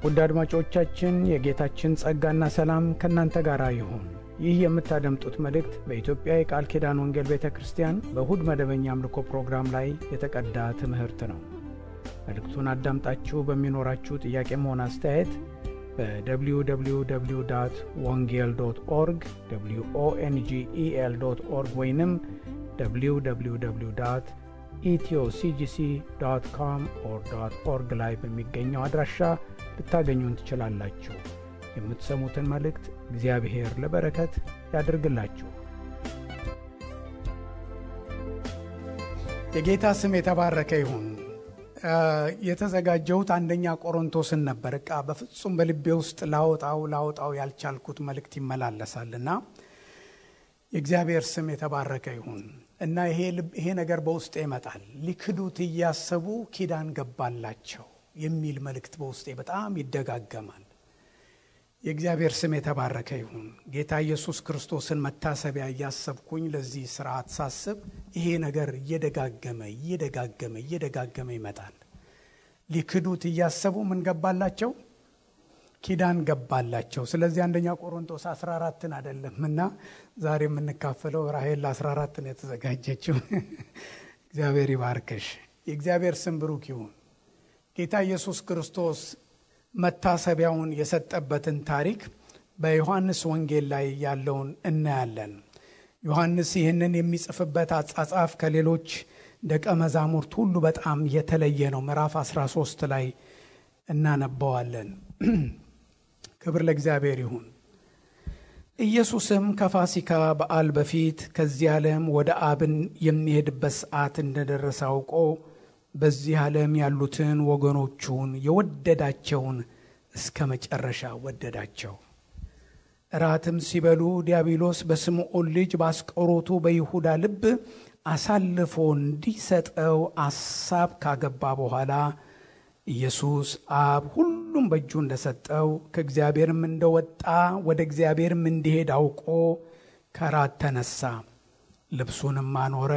ውድ አድማጮቻችን የጌታችን ጸጋና ሰላም ከእናንተ ጋር ይሁን። ይህ የምታደምጡት መልእክት በኢትዮጵያ የቃል ኪዳን ወንጌል ቤተክርስቲያን በእሁድ መደበኛ አምልኮ ፕሮግራም ላይ የተቀዳ ትምህርት ነው። መልእክቱን አዳምጣችሁ በሚኖራችሁ ጥያቄም ሆነ አስተያየት በwww.wongel.org wongel.org ወይንም www.ethioCGC.com/org ላይ በሚገኘው አድራሻ ልታገኙን ትችላላችሁ። የምትሰሙትን መልእክት እግዚአብሔር ለበረከት ያድርግላችሁ። የጌታ ስም የተባረከ ይሁን። የተዘጋጀሁት አንደኛ ቆሮንቶስን ነበር። በፍጹም በልቤ ውስጥ ላውጣው ያልቻልኩት መልእክት ይመላለሳልና የእግዚአብሔር ስም የተባረከ ይሁን እና ይሄ ነገር በውስጤ ይመጣል። ሊክዱት እያሰቡ ኪዳን ገባላቸው የሚል መልእክት በውስጤ በጣም ይደጋገማል። የእግዚአብሔር ስም የተባረከ ይሁን። ጌታ ኢየሱስ ክርስቶስን መታሰቢያ እያሰብኩኝ ለዚህ ስርዓት ሳስብ ይሄ ነገር እየደጋገመ ይመጣል። ሊክዱት እያሰቡ ምን ገባላቸው? ኪዳን ገባላቸው። ስለዚህ አንደኛ ቆሮንቶስ 14ን አይደለምና ዛሬ የምንካፈለው ራሔል 14 ነው የተዘጋጀችው። እግዚአብሔር ይባርክሽ። የእግዚአብሔር ስም ብሩክ ይሁን። ጌታ ኢየሱስ ክርስቶስ መታሰቢያውን የሰጠበትን ታሪክ በዮሐንስ ወንጌል ላይ ያለውን እናያለን። ዮሐንስ ይህንን የሚጽፍበት አጻጻፍ ከሌሎች ደቀ መዛሙርት ሁሉ በጣም የተለየ ነው። ምዕራፍ 13 ላይ እናነባዋለን። ክብር ለእግዚአብሔር ይሁን። ኢየሱስም ከፋሲካ በዓል በፊት ከዚህ ዓለም ወደ አብን የሚሄድበት ሰዓት እንደደረሰ አውቆ በዚህ ዓለም ያሉትን ወገኖቹን የወደዳቸውን እስከ መጨረሻ ወደዳቸው። እራትም ሲበሉ ዲያብሎስ በስምዖን ልጅ በአስቆሮቱ በይሁዳ ልብ አሳልፎ እንዲሰጠው አሳብ ካገባ በኋላ ኢየሱስ አብ ሁሉም በእጁ እንደሰጠው ከእግዚአብሔርም እንደወጣ ወደ እግዚአብሔርም እንዲሄድ አውቆ ከራት ተነሳ፣ ልብሱንም አኖረ፣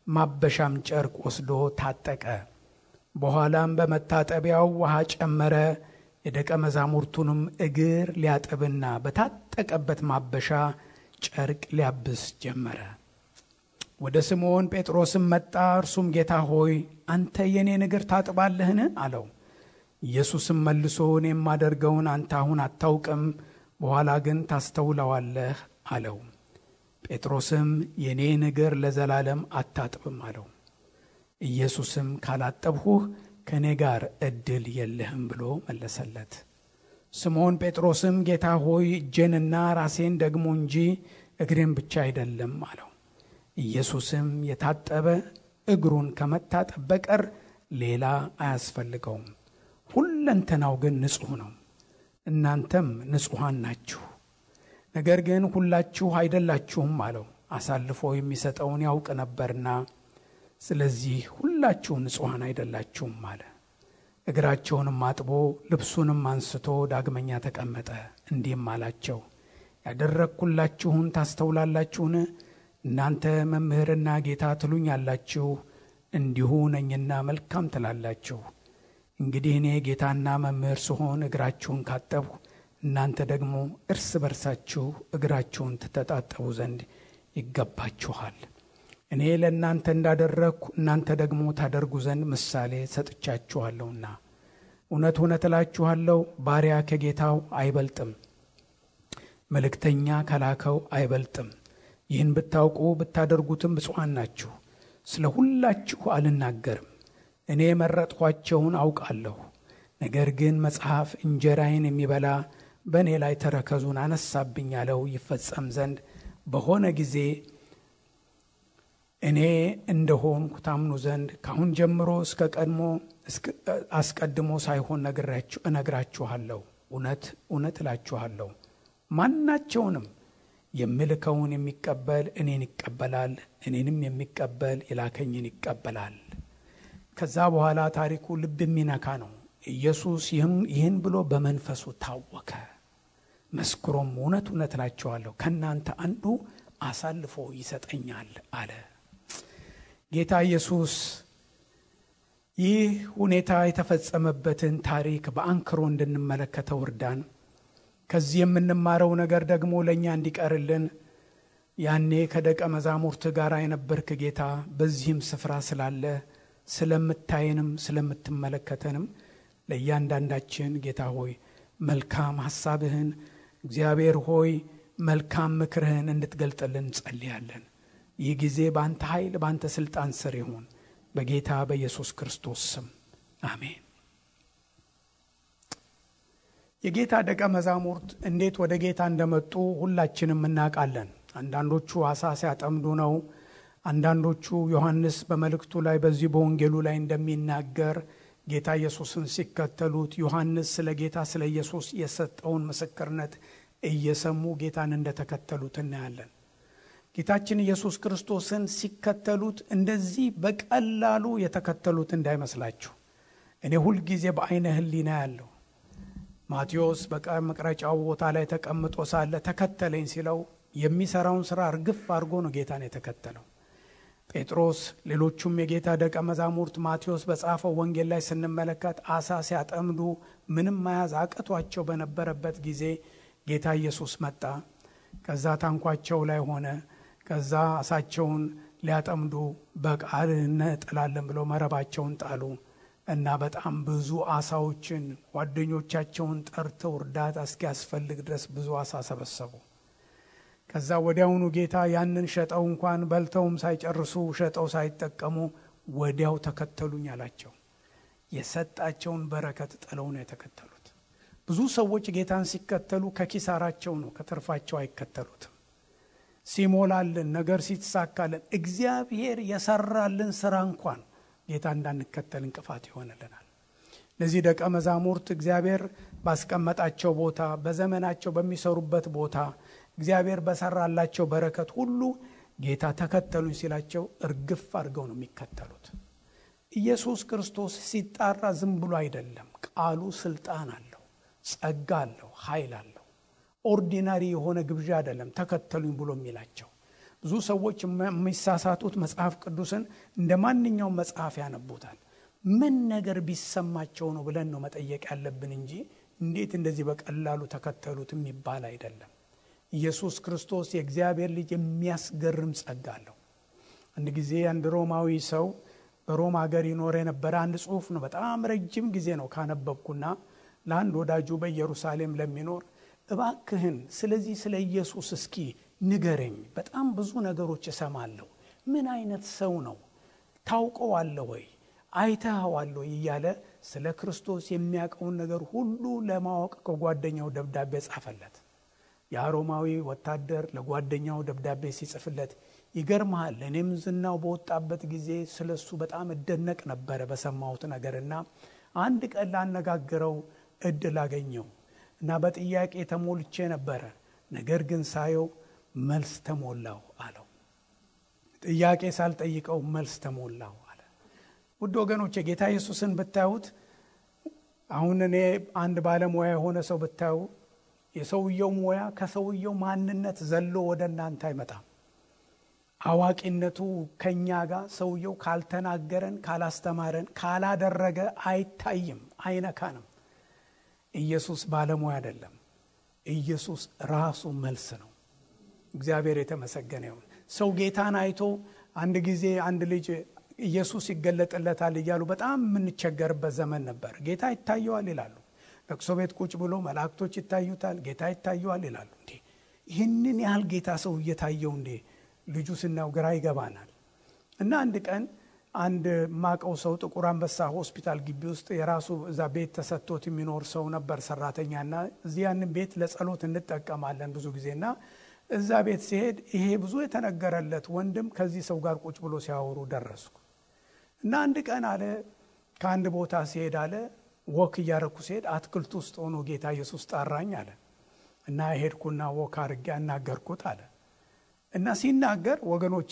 ማበሻም ጨርቅ ወስዶ ታጠቀ። በኋላም በመታጠቢያው ውሃ ጨመረ፣ የደቀ መዛሙርቱንም እግር ሊያጥብና በታጠቀበት ማበሻ ጨርቅ ሊያብስ ጀመረ። ወደ ስምዖን ጴጥሮስም መጣ። እርሱም ጌታ ሆይ አንተ የኔን እግር ታጥባለህን? አለው። ኢየሱስም መልሶ እኔ የማደርገውን አንተ አሁን አታውቅም፣ በኋላ ግን ታስተውለዋለህ አለው። ጴጥሮስም የኔን እግር ለዘላለም አታጥብም አለው። ኢየሱስም ካላጠብሁህ ከኔ ጋር ዕድል የለህም ብሎ መለሰለት። ስምዖን ጴጥሮስም ጌታ ሆይ እጄንና ራሴን ደግሞ እንጂ እግሬን ብቻ አይደለም አለው። ኢየሱስም የታጠበ እግሩን ከመታጠብ በቀር ሌላ አያስፈልገውም፣ ሁለንተናው ግን ንጹሕ ነው። እናንተም ንጹሐን ናችሁ፣ ነገር ግን ሁላችሁ አይደላችሁም አለው። አሳልፎ የሚሰጠውን ያውቅ ነበርና፣ ስለዚህ ሁላችሁ ንጹሐን አይደላችሁም አለ። እግራቸውንም አጥቦ ልብሱንም አንስቶ ዳግመኛ ተቀመጠ። እንዲህም አላቸው፣ ያደረግኩላችሁን ታስተውላላችሁን? እናንተ መምህርና ጌታ ትሉኛላችሁ፣ እንዲሁ ነኝና መልካም ትላላችሁ። እንግዲህ እኔ ጌታና መምህር ስሆን እግራችሁን ካጠብሁ፣ እናንተ ደግሞ እርስ በርሳችሁ እግራችሁን ትተጣጠቡ ዘንድ ይገባችኋል። እኔ ለእናንተ እንዳደረግኩ እናንተ ደግሞ ታደርጉ ዘንድ ምሳሌ ሰጥቻችኋለሁና። እውነት እውነት እላችኋለሁ፣ ባሪያ ከጌታው አይበልጥም፣ መልእክተኛ ከላከው አይበልጥም። ይህን ብታውቁ ብታደርጉትም ብፁዓን ናችሁ። ስለ ሁላችሁ አልናገርም፣ እኔ የመረጥኳቸውን አውቃለሁ። ነገር ግን መጽሐፍ እንጀራዬን የሚበላ በእኔ ላይ ተረከዙን አነሳብኝ ያለው ይፈጸም ዘንድ በሆነ ጊዜ እኔ እንደሆንኩ ታምኑ ዘንድ ካሁን ጀምሮ አስቀድሞ ሳይሆን እነግራችኋለሁ። እውነት እውነት እላችኋለሁ፣ ማናቸውንም የምልከውን የሚቀበል እኔን ይቀበላል፣ እኔንም የሚቀበል የላከኝን ይቀበላል። ከዛ በኋላ ታሪኩ ልብ የሚነካ ነው። ኢየሱስ ይህን ብሎ በመንፈሱ ታወከ፣ መስክሮም እውነት እውነት እላችኋለሁ ከእናንተ አንዱ አሳልፎ ይሰጠኛል አለ። ጌታ ኢየሱስ ይህ ሁኔታ የተፈጸመበትን ታሪክ በአንክሮ እንድንመለከተው እርዳን። ከዚህ የምንማረው ነገር ደግሞ ለእኛ እንዲቀርልን ያኔ ከደቀ መዛሙርት ጋር የነበርክ ጌታ በዚህም ስፍራ ስላለ ስለምታየንም ስለምትመለከተንም ለእያንዳንዳችን ጌታ ሆይ መልካም ሐሳብህን እግዚአብሔር ሆይ መልካም ምክርህን እንድትገልጥልን ጸልያለን። ይህ ጊዜ በአንተ ኃይል በአንተ ሥልጣን ስር ይሁን በጌታ በኢየሱስ ክርስቶስ ስም አሜን። የጌታ ደቀ መዛሙርት እንዴት ወደ ጌታ እንደመጡ ሁላችንም እናውቃለን። አንዳንዶቹ አሳ ሲያጠምዱ ነው። አንዳንዶቹ ዮሐንስ በመልእክቱ ላይ በዚህ በወንጌሉ ላይ እንደሚናገር ጌታ ኢየሱስን ሲከተሉት ዮሐንስ ስለ ጌታ ስለ ኢየሱስ የሰጠውን ምስክርነት እየሰሙ ጌታን እንደተከተሉት እናያለን። ጌታችን ኢየሱስ ክርስቶስን ሲከተሉት እንደዚህ በቀላሉ የተከተሉት እንዳይመስላችሁ። እኔ ሁልጊዜ በአይነ ህሊና ያለው ማቴዎስ በመቅረጫው ቦታ ላይ ተቀምጦ ሳለ ተከተለኝ ሲለው የሚሰራውን ስራ እርግፍ አድርጎ ነው ጌታን የተከተለው። ጴጥሮስ፣ ሌሎቹም የጌታ ደቀ መዛሙርት ማቴዎስ በጻፈው ወንጌል ላይ ስንመለከት አሳ ሲያጠምዱ ምንም መያዝ አቅቷቸው በነበረበት ጊዜ ጌታ ኢየሱስ መጣ። ከዛ ታንኳቸው ላይ ሆነ። ከዛ አሳቸውን ሊያጠምዱ በቃል እንጥላለን ብለው መረባቸውን ጣሉ እና በጣም ብዙ አሳዎችን ጓደኞቻቸውን ጠርተው እርዳታ እስኪያስፈልግ ድረስ ብዙ አሳ ሰበሰቡ። ከዛ ወዲያውኑ ጌታ ያንን ሸጠው እንኳን በልተውም ሳይጨርሱ ሸጠው ሳይጠቀሙ ወዲያው ተከተሉኝ አላቸው። የሰጣቸውን በረከት ጥለው ነው የተከተሉት። ብዙ ሰዎች ጌታን ሲከተሉ ከኪሳራቸው ነው፣ ከትርፋቸው አይከተሉትም። ሲሞላልን ነገር ሲተሳካልን እግዚአብሔር የሰራልን ስራ እንኳን ጌታ እንዳንከተል እንቅፋት ይሆንልናል። ለዚህ ደቀ መዛሙርት እግዚአብሔር ባስቀመጣቸው ቦታ በዘመናቸው በሚሰሩበት ቦታ እግዚአብሔር በሰራላቸው በረከት ሁሉ ጌታ ተከተሉኝ ሲላቸው እርግፍ አድርገው ነው የሚከተሉት። ኢየሱስ ክርስቶስ ሲጣራ ዝም ብሎ አይደለም። ቃሉ ስልጣን አለው፣ ጸጋ አለው፣ ኃይል አለው። ኦርዲናሪ የሆነ ግብዣ አይደለም ተከተሉኝ ብሎ የሚላቸው። ብዙ ሰዎች የሚሳሳቱት መጽሐፍ ቅዱስን እንደ ማንኛውም መጽሐፍ ያነቡታል። ምን ነገር ቢሰማቸው ነው ብለን ነው መጠየቅ ያለብን እንጂ እንዴት እንደዚህ በቀላሉ ተከተሉት የሚባል አይደለም። ኢየሱስ ክርስቶስ የእግዚአብሔር ልጅ የሚያስገርም ጸጋ አለው። አንድ ጊዜ አንድ ሮማዊ ሰው በሮማ ሀገር ይኖር የነበረ አንድ ጽሑፍ ነው። በጣም ረጅም ጊዜ ነው ካነበብኩና ለአንድ ወዳጁ በኢየሩሳሌም ለሚኖር እባክህን ስለዚህ ስለ ኢየሱስ እስኪ ንገረኝ፣ በጣም ብዙ ነገሮች እሰማለሁ። ምን አይነት ሰው ነው? ታውቀዋለህ ወይ? አይተኸዋል ወይ? እያለ ስለ ክርስቶስ የሚያውቀውን ነገር ሁሉ ለማወቅ ከጓደኛው ደብዳቤ ጻፈለት። ያ ሮማዊ ወታደር ለጓደኛው ደብዳቤ ሲጽፍለት ይገርምሃል፣ እኔም ዝናው በወጣበት ጊዜ ስለሱ በጣም እደነቅ ነበረ በሰማሁት ነገርና አንድ ቀን ላነጋግረው እድል አገኘው እና በጥያቄ ተሞልቼ ነበረ፣ ነገር ግን ሳየው መልስ ተሞላው አለው። ጥያቄ ሳልጠይቀው መልስ ተሞላው አለ። ውድ ወገኖች ጌታ ኢየሱስን ብታዩት፣ አሁን እኔ አንድ ባለሙያ የሆነ ሰው ብታዩ የሰውየው ሙያ ከሰውየው ማንነት ዘሎ ወደ እናንተ አይመጣም። አዋቂነቱ ከኛ ጋር ሰውየው ካልተናገረን፣ ካላስተማረን፣ ካላደረገ አይታይም፣ አይነካንም። ኢየሱስ ባለሙያ አይደለም። ኢየሱስ ራሱ መልስ ነው። እግዚአብሔር የተመሰገነ ይሁን። ሰው ጌታን አይቶ አንድ ጊዜ አንድ ልጅ ኢየሱስ ይገለጥለታል እያሉ በጣም የምንቸገርበት ዘመን ነበር። ጌታ ይታየዋል ይላሉ። ለቅሶ ቤት ቁጭ ብሎ መላእክቶች ይታዩታል፣ ጌታ ይታየዋል ይላሉ። እንዴ ይህንን ያህል ጌታ ሰው እየታየው እንዴ? ልጁ ስናው ግራ ይገባናል። እና አንድ ቀን አንድ ማቀው ሰው ጥቁር አንበሳ ሆስፒታል ግቢ ውስጥ የራሱ እዛ ቤት ተሰጥቶት የሚኖር ሰው ነበር፣ ሰራተኛና እዚህ ያንን ቤት ለጸሎት እንጠቀማለን ብዙ ጊዜና እዛ ቤት ሲሄድ ይሄ ብዙ የተነገረለት ወንድም ከዚህ ሰው ጋር ቁጭ ብሎ ሲያወሩ ደረስኩ። እና አንድ ቀን አለ ከአንድ ቦታ ሲሄድ አለ ወክ እያረኩ ሲሄድ አትክልት ውስጥ ሆኖ ጌታ ኢየሱስ ጠራኝ አለ እና ሄድኩና ወክ አድርጌ አናገርኩት አለ። እና ሲናገር ወገኖቼ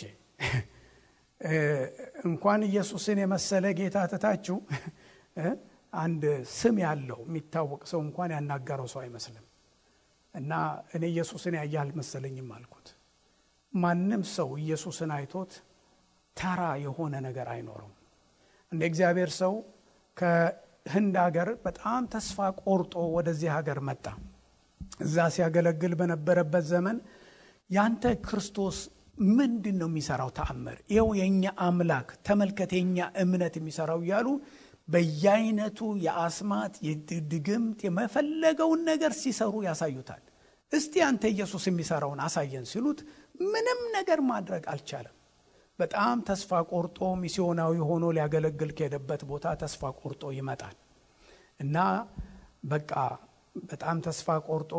እንኳን ኢየሱስን የመሰለ ጌታ ተታችሁ አንድ ስም ያለው የሚታወቅ ሰው እንኳን ያናገረው ሰው አይመስልም። እና እኔ ኢየሱስን ያያል መሰለኝም አልኩት። ማንም ሰው ኢየሱስን አይቶት ተራ የሆነ ነገር አይኖርም። እንደ እግዚአብሔር ሰው ከህንድ ሀገር በጣም ተስፋ ቆርጦ ወደዚህ ሀገር መጣ። እዛ ሲያገለግል በነበረበት ዘመን ያንተ ክርስቶስ ምንድን ነው የሚሰራው ተአምር? ይኸው የኛ አምላክ ተመልከት፣ የኛ እምነት የሚሰራው እያሉ በየአይነቱ የአስማት የድግምት የመፈለገውን ነገር ሲሰሩ ያሳዩታል። እስቲ አንተ ኢየሱስ የሚሰራውን አሳየን ሲሉት ምንም ነገር ማድረግ አልቻለም። በጣም ተስፋ ቆርጦ ሚስዮናዊ ሆኖ ሊያገለግል ከሄደበት ቦታ ተስፋ ቆርጦ ይመጣል እና በቃ በጣም ተስፋ ቆርጦ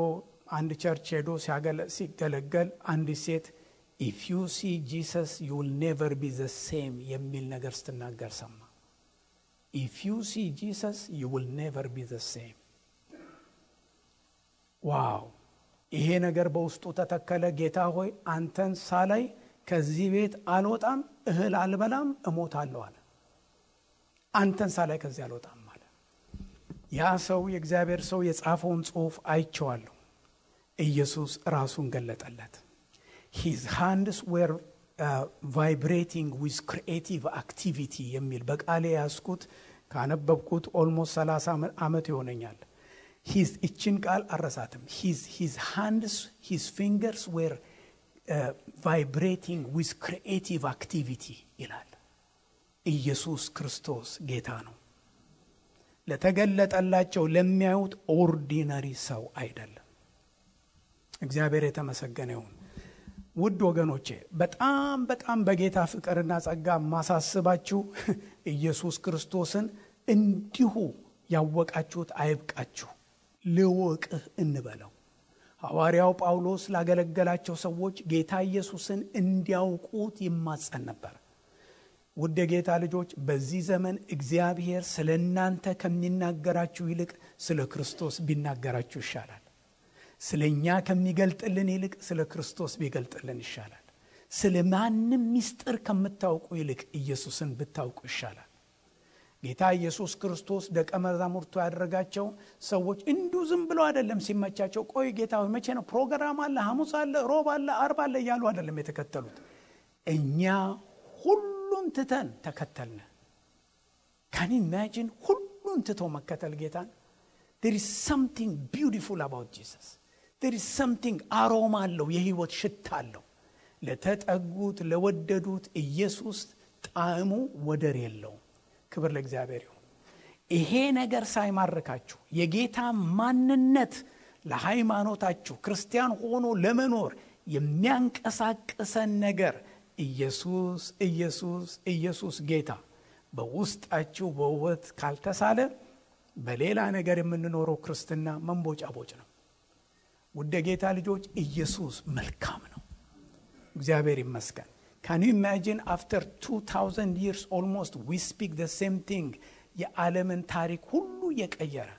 አንድ ቸርች ሄዶ ሲገለገል አንዲት ሴት if you see Jesus you will never be the same የሚል ነገር ስትናገር ሰማ። if you see Jesus you will never be the same። ዋው! ይሄ ነገር በውስጡ ተተከለ። ጌታ ሆይ አንተን ሳላይ ከዚህ ቤት አልወጣም፣ እህል አልበላም፣ እሞታለሁ አለ። አንተን ሳላይ ከዚህ አልወጣም አለ። ያ ሰው የእግዚአብሔር ሰው የጻፈውን ጽሑፍ አይቼዋለሁ። ኢየሱስ ራሱን ገለጠለት። his hands were vibrating with creative activity የሚል በቃሌ ያስኩት ካነበብኩት ኦልሞስት 30 ዓመት ይሆነኛል። እችን ቃል አረሳትም። his hands his fingers were vibrating with creative activity ይላል። ኢየሱስ ክርስቶስ ጌታ ነው። ለተገለጠላቸው ለሚያዩት ኦርዲነሪ ሰው አይደለም። እግዚአብሔር የተመሰገነ ይሁን። ውድ ወገኖቼ በጣም በጣም በጌታ ፍቅርና ጸጋ ማሳስባችሁ ኢየሱስ ክርስቶስን እንዲሁ ያወቃችሁት አይብቃችሁ፣ ልወቅህ እንበለው። ሐዋርያው ጳውሎስ ላገለገላቸው ሰዎች ጌታ ኢየሱስን እንዲያውቁት ይማጸን ነበር። ውድ የጌታ ልጆች በዚህ ዘመን እግዚአብሔር ስለ እናንተ ከሚናገራችሁ ይልቅ ስለ ክርስቶስ ቢናገራችሁ ይሻላል። ስለኛ ከሚገልጥልን ይልቅ ስለ ክርስቶስ ቢገልጥልን ይሻላል። ስለ ማንም ምስጢር ከምታውቁ ይልቅ ኢየሱስን ብታውቁ ይሻላል። ጌታ ኢየሱስ ክርስቶስ ደቀ መዛሙርቱ ያደረጋቸው ሰዎች እንዲሁ ዝም ብሎ አይደለም ሲመቻቸው ቆይ ጌታ ሆይ መቼ ነው ፕሮግራም አለ፣ ሐሙስ አለ፣ ሮብ አለ፣ አርብ አለ እያሉ አይደለም የተከተሉት። እኛ ሁሉን ትተን ተከተልን። Can you imagine ሁሉን ትቶ መከተል ጌታን? There is something beautiful about Jesus. There is something አሮማ አለው፣ የህይወት ሽታ አለው። ለተጠጉት ለወደዱት ኢየሱስ ጣዕሙ ወደር የለውም። ክብር ለእግዚአብሔር ይሁን። ይሄ ነገር ሳይማርካችሁ የጌታ ማንነት ለሃይማኖታችሁ ክርስቲያን ሆኖ ለመኖር የሚያንቀሳቅሰን ነገር ኢየሱስ ኢየሱስ ኢየሱስ ጌታ በውስጣችሁ በውበት ካልተሳለ በሌላ ነገር የምንኖረው ክርስትና መንቦጫቦጭ ነው። ውድ ጌታ ልጆች ኢየሱስ መልካም ነው። እግዚአብሔር ይመስገን። Can you imagine after 2000 years almost we speak the same thing? የዓለምን ታሪክ ሁሉ የቀየረ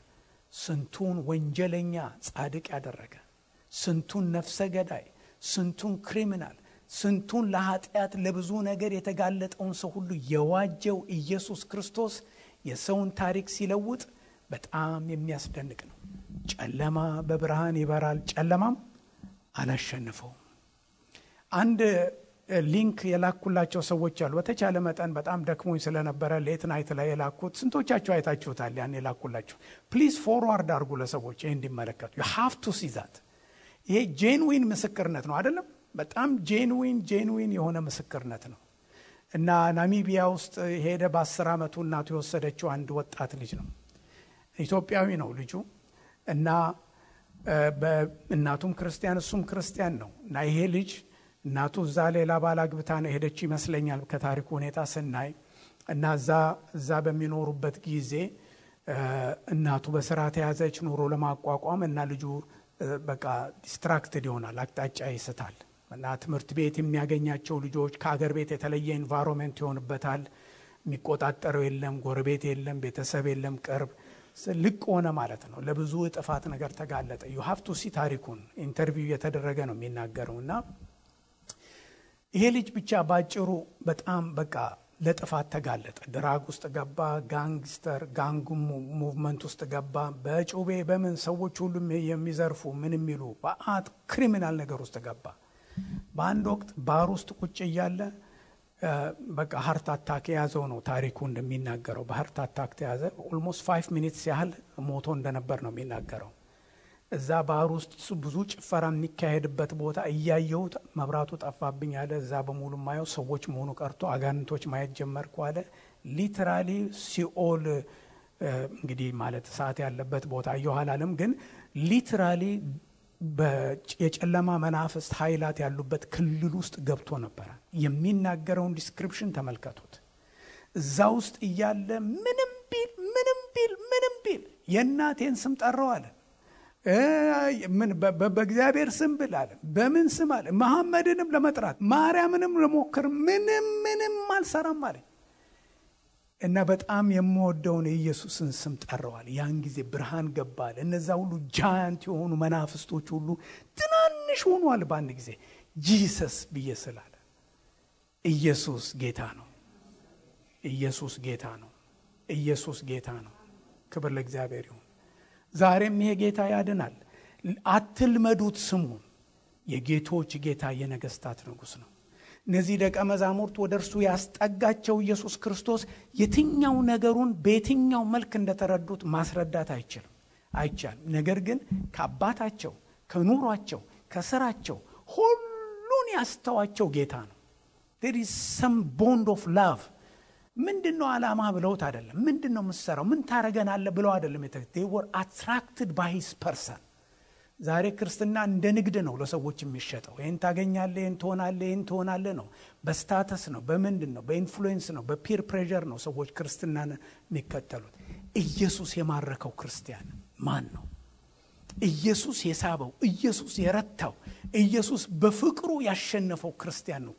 ስንቱን ወንጀለኛ ጻድቅ ያደረገ፣ ስንቱን ነፍሰ ገዳይ፣ ስንቱን ክሪሚናል፣ ስንቱን ለኃጢአት ለብዙ ነገር የተጋለጠውን ሰው ሁሉ የዋጀው ኢየሱስ ክርስቶስ የሰውን ታሪክ ሲለውጥ በጣም የሚያስደንቅ ነው። ጨለማ በብርሃን ይበራል፣ ጨለማም አላሸነፈው። አንድ ሊንክ የላኩላቸው ሰዎች አሉ። በተቻለ መጠን በጣም ደክሞኝ ስለነበረ ሌት ናይት ላይ የላኩት ስንቶቻችሁ አይታችሁታል? ያን የላኩላችሁ ፕሊዝ ፎርዋርድ አድርጉ ለሰዎች ይሄን እንዲመለከቱ። you have to see that። ይሄ ጄንዊን ምስክርነት ነው አይደለም? በጣም ጄንዊን የሆነ ምስክርነት ነው። እና ናሚቢያ ውስጥ ሄደ በ10 ዓመቱ እናቱ የወሰደችው አንድ ወጣት ልጅ ነው። ኢትዮጵያዊ ነው ልጁ እና እናቱም ክርስቲያን እሱም ክርስቲያን ነው። እና ይሄ ልጅ እናቱ እዛ ሌላ ባል አግብታ ነው ሄደች ይመስለኛል ከታሪኩ ሁኔታ ስናይ። እና እዛ በሚኖሩበት ጊዜ እናቱ በስራ ተያዘች ኑሮ ለማቋቋም እና ልጁ በቃ ዲስትራክትድ ይሆናል፣ አቅጣጫ ይስታል። እና ትምህርት ቤት የሚያገኛቸው ልጆች ከአገር ቤት የተለየ ኢንቫይሮንመንት ይሆንበታል። የሚቆጣጠረው የለም፣ ጎረቤት የለም፣ ቤተሰብ የለም፣ ቅርብ ልቅ ሆነ ማለት ነው። ለብዙ ጥፋት ነገር ተጋለጠ። you have to see ታሪኩን ኢንተርቪው የተደረገ ነው የሚናገረውና ይሄ ልጅ ብቻ ባጭሩ በጣም በቃ ለጥፋት ተጋለጠ። ድራግ ውስጥ ገባ፣ ጋንግስተር ጋንግ ሙቭመንት ውስጥ ገባ። በጩቤ በምን ሰዎች ሁሉ የሚዘርፉ ምን የሚሉ በአት ክሪሚናል ነገር ውስጥ ገባ። በአንድ ወቅት ባር ውስጥ ቁጭ እያለ በቃ ሃርት አታክ የያዘው ነው ታሪኩ እንደሚናገረው። በሃርት አታክ ተያዘ። ኦልሞስት 5 ሚኒትስ ያህል ሞቶ እንደነበር ነው የሚናገረው። እዛ ባህር ውስጥ ብዙ ጭፈራ የሚካሄድበት ቦታ እያየሁት መብራቱ ጠፋብኝ አለ። እዛ በሙሉ ማየው ሰዎች መሆኑ ቀርቶ አጋንንቶች ማየት ጀመርኩ አለ። ሊትራሊ ሲኦል እንግዲህ ማለት እሳት ያለበት ቦታ አየኋላለም፣ ግን ሊትራሊ የጨለማ መናፍስት ኃይላት ያሉበት ክልል ውስጥ ገብቶ ነበር። የሚናገረውን ዲስክሪፕሽን ተመልከቱት። እዛ ውስጥ እያለ ምንም ቢል የእናቴን ስም ጠራው አለ። ምን በእግዚአብሔር ስም ብል አለ። በምን ስም አለ? መሐመድንም ለመጥራት ማርያምንም ለሞክር ምንም አልሰራም አለ። እና በጣም የምወደውን የኢየሱስን ስም ጠራዋል። ያን ጊዜ ብርሃን ገባል። እነዛ ሁሉ ጃያንት የሆኑ መናፍስቶች ሁሉ ትናንሽ ሆኗል በአንድ ጊዜ ጂሰስ ብዬ ስላለ። ኢየሱስ ጌታ ነው። ኢየሱስ ጌታ ነው። ኢየሱስ ጌታ ነው። ክብር ለእግዚአብሔር ይሁን። ዛሬም ይሄ ጌታ ያድናል። አትልመዱት ስሙን። የጌቶች ጌታ የነገስታት ንጉስ ነው። እነዚህ ደቀ መዛሙርት ወደ እርሱ ያስጠጋቸው ኢየሱስ ክርስቶስ የትኛው ነገሩን በየትኛው መልክ እንደተረዱት ማስረዳት አይቻልም። ነገር ግን ከአባታቸው፣ ከኑሯቸው፣ ከስራቸው ሁሉን ያስተዋቸው ጌታ ነው። there is some bond of love። ምንድነው ዓላማ ብለውት አይደለም። ምንድነው የምትሰራው ምን ታረገናለህ ብለው አይደለም። they were attracted by his person። ዛሬ ክርስትና እንደ ንግድ ነው ለሰዎች የሚሸጠው። ይሄን ታገኛለህ፣ ይሄን ትሆናለህ ነው። በስታተስ ነው፣ በምንድን ነው? በኢንፍሉዌንስ ነው፣ በፒር ፕሬዠር ነው ሰዎች ክርስትናን የሚከተሉት። ኢየሱስ የማረከው ክርስቲያን ማን ነው? ኢየሱስ የሳበው፣ ኢየሱስ የረታው፣ ኢየሱስ በፍቅሩ ያሸነፈው ክርስቲያን ነው።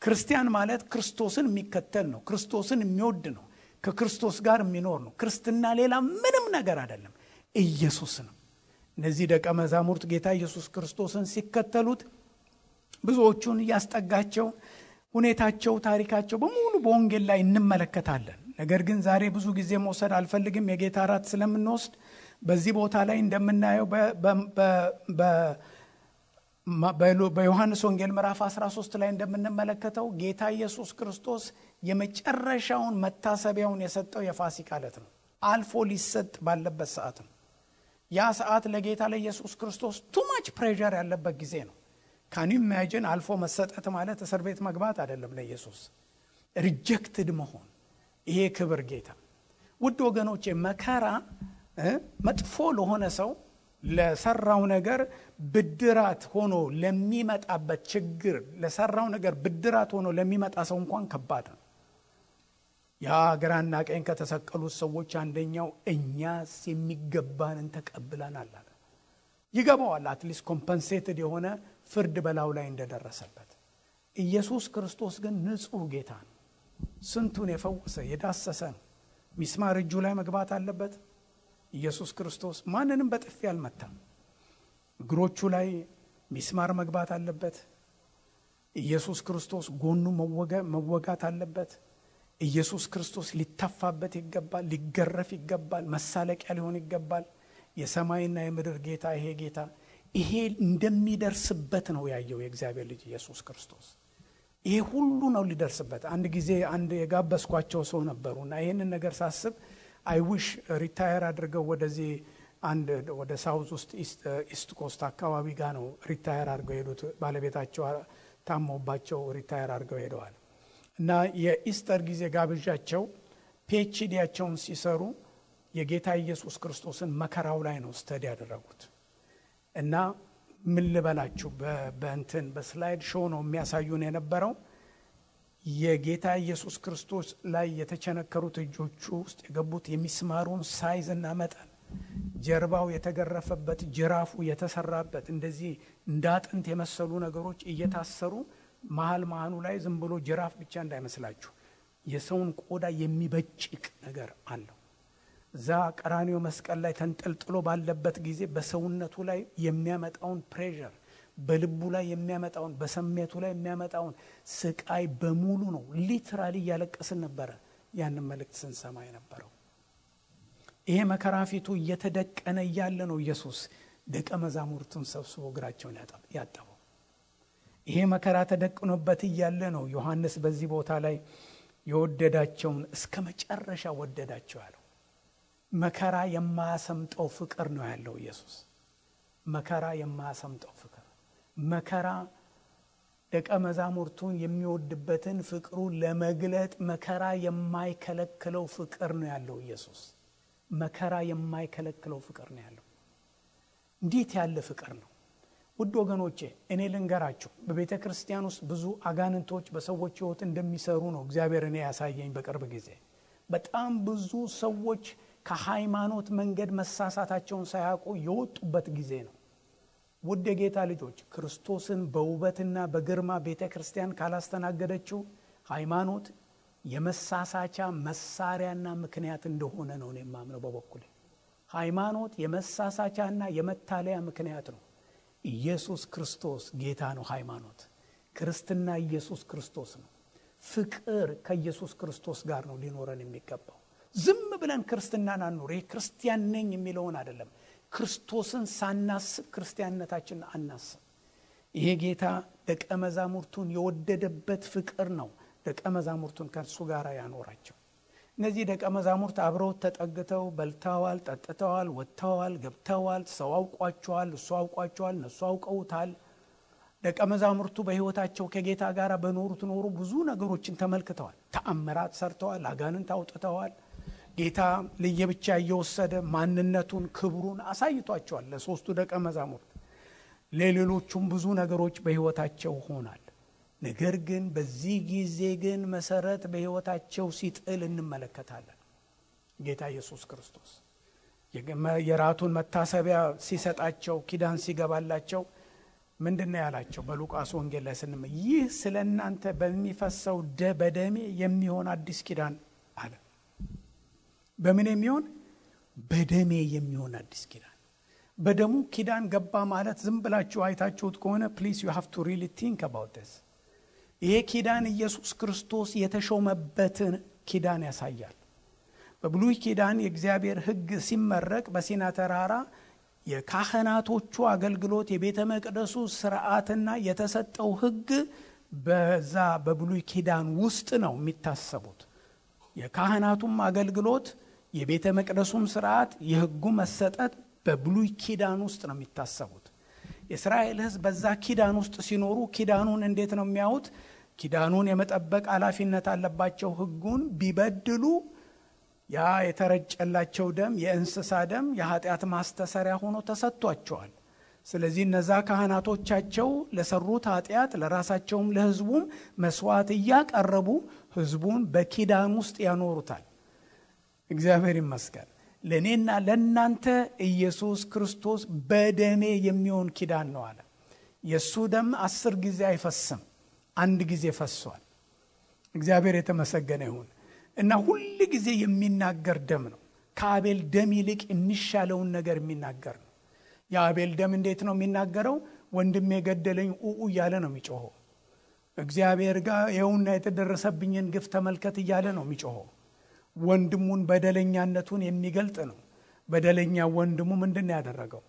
ክርስቲያን ማለት ክርስቶስን የሚከተል ነው። ክርስቶስን የሚወድ ነው። ከክርስቶስ ጋር የሚኖር ነው። ክርስትና ሌላ ምንም ነገር አይደለም፣ ኢየሱስ ነው። እነዚህ ደቀ መዛሙርት ጌታ ኢየሱስ ክርስቶስን ሲከተሉት ብዙዎቹን ያስጠጋቸው ሁኔታቸው፣ ታሪካቸው በሙሉ በወንጌል ላይ እንመለከታለን። ነገር ግን ዛሬ ብዙ ጊዜ መውሰድ አልፈልግም። የጌታ እራት ስለምንወስድ በዚህ ቦታ ላይ እንደምናየው በዮሐንስ ወንጌል ምዕራፍ 13 ላይ እንደምንመለከተው ጌታ ኢየሱስ ክርስቶስ የመጨረሻውን መታሰቢያውን የሰጠው የፋሲካ ዕለት ነው። አልፎ ሊሰጥ ባለበት ሰዓት ነው። ያ ሰዓት ለጌታ ለኢየሱስ ክርስቶስ too much pressure ያለበት ጊዜ ነው። can you imagine? አልፎ መሰጠት ማለት እስር ቤት መግባት አይደለም። ለኢየሱስ ሪጀክትድ መሆን፣ ይሄ ክብር ጌታ። ውድ ወገኖቼ መከራ መጥፎ ለሆነ ሰው ለሰራው ነገር ብድራት ሆኖ ለሚመጣበት ችግር፣ ለሰራው ነገር ብድራት ሆኖ ለሚመጣ ሰው እንኳን ከባድ ነው። ያ ግራና ቀኝ ከተሰቀሉት ሰዎች አንደኛው እኛስ የሚገባንን ተቀብለናል አለ። ይገባዋል። አትሊስት ኮምፐንሴትድ የሆነ ፍርድ በላው ላይ እንደደረሰበት። ኢየሱስ ክርስቶስ ግን ንጹህ ጌታ ነው። ስንቱን የፈወሰ የዳሰሰ ነው። ሚስማር እጁ ላይ መግባት አለበት። ኢየሱስ ክርስቶስ ማንንም በጥፊ አልመታም። እግሮቹ ላይ ሚስማር መግባት አለበት። ኢየሱስ ክርስቶስ ጎኑ መወጋት አለበት። ኢየሱስ ክርስቶስ ሊተፋበት ይገባል፣ ሊገረፍ ይገባል፣ መሳለቂያ ሊሆን ይገባል። የሰማይና የምድር ጌታ ይሄ ጌታ ይሄ እንደሚደርስበት ነው ያየው የእግዚአብሔር ልጅ ኢየሱስ ክርስቶስ። ይሄ ሁሉ ነው ሊደርስበት። አንድ ጊዜ አንድ የጋበስኳቸው ሰው ነበሩና ይሄንን ነገር ሳስብ አይ ዊሽ ሪታየር አድርገው ወደዚህ አንድ ወደ ሳውዝ ውስጥ ኢስት ኮስት አካባቢ ጋር ነው ሪታየር አድርገው ሄዱት። ባለቤታቸው ታመውባቸው ሪታየር አድርገው ሄደዋል። እና የኢስተር ጊዜ ጋብዣቸው ፒኤችዲያቸውን ሲሰሩ የጌታ ኢየሱስ ክርስቶስን መከራው ላይ ነው ስተዲ ያደረጉት። እና ምን ልበላችሁ በእንትን በስላይድ ሾው ነው የሚያሳዩን የነበረው። የጌታ ኢየሱስ ክርስቶስ ላይ የተቸነከሩት እጆቹ ውስጥ የገቡት የሚስማሩን ሳይዝ እና መጠን፣ ጀርባው የተገረፈበት፣ ጅራፉ የተሰራበት እንደዚህ እንዳጥንት የመሰሉ ነገሮች እየታሰሩ መሃሉ ላይ ዝም ብሎ ጅራፍ ብቻ እንዳይመስላችሁ የሰውን ቆዳ የሚበጭቅ ነገር አለው። እዛ ቀራንዮ መስቀል ላይ ተንጠልጥሎ ባለበት ጊዜ በሰውነቱ ላይ የሚያመጣውን ፕሬሸር፣ በልቡ ላይ የሚያመጣውን፣ በስሜቱ ላይ የሚያመጣውን ስቃይ በሙሉ ነው ሊትራሊ እያለቀስን ነበረ ያንን መልእክት ስንሰማ የነበረው። ይሄ መከራ ፊቱ እየተደቀነ እያለ ነው ኢየሱስ ደቀ መዛሙርቱን ሰብስቦ እግራቸውን ያጠበው። ይሄ መከራ ተደቅኖበት እያለ ነው ዮሐንስ በዚህ ቦታ ላይ የወደዳቸውን እስከ መጨረሻ ወደዳቸው ያለው። መከራ የማያሰምጠው ፍቅር ነው ያለው ኢየሱስ። መከራ የማያሰምጠው ፍቅር፣ መከራ ደቀ መዛሙርቱን የሚወድበትን ፍቅሩን ለመግለጥ መከራ የማይከለክለው ፍቅር ነው ያለው ኢየሱስ። መከራ የማይከለክለው ፍቅር ነው ያለው። እንዴት ያለ ፍቅር ነው! ውድ ወገኖቼ እኔ ልንገራችሁ፣ በቤተ ክርስቲያን ውስጥ ብዙ አጋንንቶች በሰዎች ሕይወት እንደሚሰሩ ነው እግዚአብሔር እኔ ያሳየኝ በቅርብ ጊዜ። በጣም ብዙ ሰዎች ከሃይማኖት መንገድ መሳሳታቸውን ሳያውቁ የወጡበት ጊዜ ነው። ውድ የጌታ ልጆች፣ ክርስቶስን በውበትና በግርማ ቤተ ክርስቲያን ካላስተናገደችው ሃይማኖት የመሳሳቻ መሳሪያና ምክንያት እንደሆነ ነው እኔ የማምነው በበኩሌ። ሃይማኖት የመሳሳቻና የመታለያ ምክንያት ነው። ኢየሱስ ክርስቶስ ጌታ ነው። ሃይማኖት ክርስትና ኢየሱስ ክርስቶስ ነው። ፍቅር ከኢየሱስ ክርስቶስ ጋር ነው ሊኖረን የሚገባው። ዝም ብለን ክርስትናን አንኖር። ይሄ ክርስቲያን ነኝ የሚለውን አይደለም። ክርስቶስን ሳናስብ ክርስቲያንነታችንን አናስብ። ይሄ ጌታ ደቀ መዛሙርቱን የወደደበት ፍቅር ነው ደቀ መዛሙርቱን ከእርሱ ጋር ያኖራቸው። እነዚህ ደቀ መዛሙርት አብረው ተጠግተው በልተዋል፣ ጠጥተዋል፣ ወጥተዋል፣ ገብተዋል። ሰው አውቋቸዋል፣ እሱ አውቋቸዋል፣ እነሱ አውቀውታል። ደቀ መዛሙርቱ በሕይወታቸው ከጌታ ጋር በኖሩት ኖሩ ብዙ ነገሮችን ተመልክተዋል። ተአምራት ሰርተዋል፣ አጋንንት አውጥተዋል። ጌታ ለየብቻ እየወሰደ ማንነቱን ክብሩን አሳይቷቸዋል ለሶስቱ ደቀ መዛሙርት። ለሌሎቹም ብዙ ነገሮች በሕይወታቸው ሆናል። ነገር ግን በዚህ ጊዜ ግን መሰረት በሕይወታቸው ሲጥል እንመለከታለን። ጌታ ኢየሱስ ክርስቶስ የራቱን መታሰቢያ ሲሰጣቸው ኪዳን ሲገባላቸው ምንድነው ያላቸው? በሉቃስ ወንጌል ላይ ስንመ ይህ ስለናንተ በሚፈሰው በደሜ የሚሆን አዲስ ኪዳን አለ። በምን የሚሆን? በደሜ የሚሆን አዲስ ኪዳን። በደሙ ኪዳን ገባ ማለት ዝም ብላችሁ አይታችሁት ከሆነ ፕሊዝ ዩ ሃቭ ቱ ሪሊ ቲንክ አባውት ዲስ። ይሄ ኪዳን ኢየሱስ ክርስቶስ የተሾመበትን ኪዳን ያሳያል። በብሉይ ኪዳን የእግዚአብሔር ሕግ ሲመረቅ በሲና ተራራ የካህናቶቹ አገልግሎት የቤተ መቅደሱ ስርዓትና የተሰጠው ሕግ በዛ በብሉይ ኪዳን ውስጥ ነው የሚታሰቡት። የካህናቱም አገልግሎት የቤተ መቅደሱም ስርዓት የሕጉ መሰጠት በብሉይ ኪዳን ውስጥ ነው የሚታሰቡት። የእስራኤል ሕዝብ በዛ ኪዳን ውስጥ ሲኖሩ ኪዳኑን እንዴት ነው የሚያዩት? ኪዳኑን የመጠበቅ ኃላፊነት አለባቸው። ሕጉን ቢበድሉ ያ የተረጨላቸው ደም የእንስሳ ደም የኃጢአት ማስተሰሪያ ሆኖ ተሰጥቷቸዋል። ስለዚህ እነዛ ካህናቶቻቸው ለሰሩት ኃጢአት ለራሳቸውም ለሕዝቡም መስዋዕት እያቀረቡ ሕዝቡን በኪዳን ውስጥ ያኖሩታል። እግዚአብሔር ይመስገን። ለእኔና ለእናንተ ኢየሱስ ክርስቶስ በደሜ የሚሆን ኪዳን ነው አለ። የእሱ ደም 10 ጊዜ አይፈስም፣ 1 ጊዜ ፈሷል። እግዚአብሔር የተመሰገነ ይሁን እና ሁል ጊዜ የሚናገር ደም ነው። ከአቤል ደም ይልቅ የሚሻለውን ነገር የሚናገር ነው። የአቤል ደም እንዴት ነው የሚናገረው? ወንድሜ የገደለኝ እያለ ነው የሚጮኸው። እግዚአብሔር ጋር ይኸውና የተደረሰብኝን ግፍ ተመልከት እያለ ነው የሚጮኸው። ወንድሙን በደለኛነቱን የሚገልጥ ነው። በደለኛ ወንድሙ ምንድነው ያደረገው?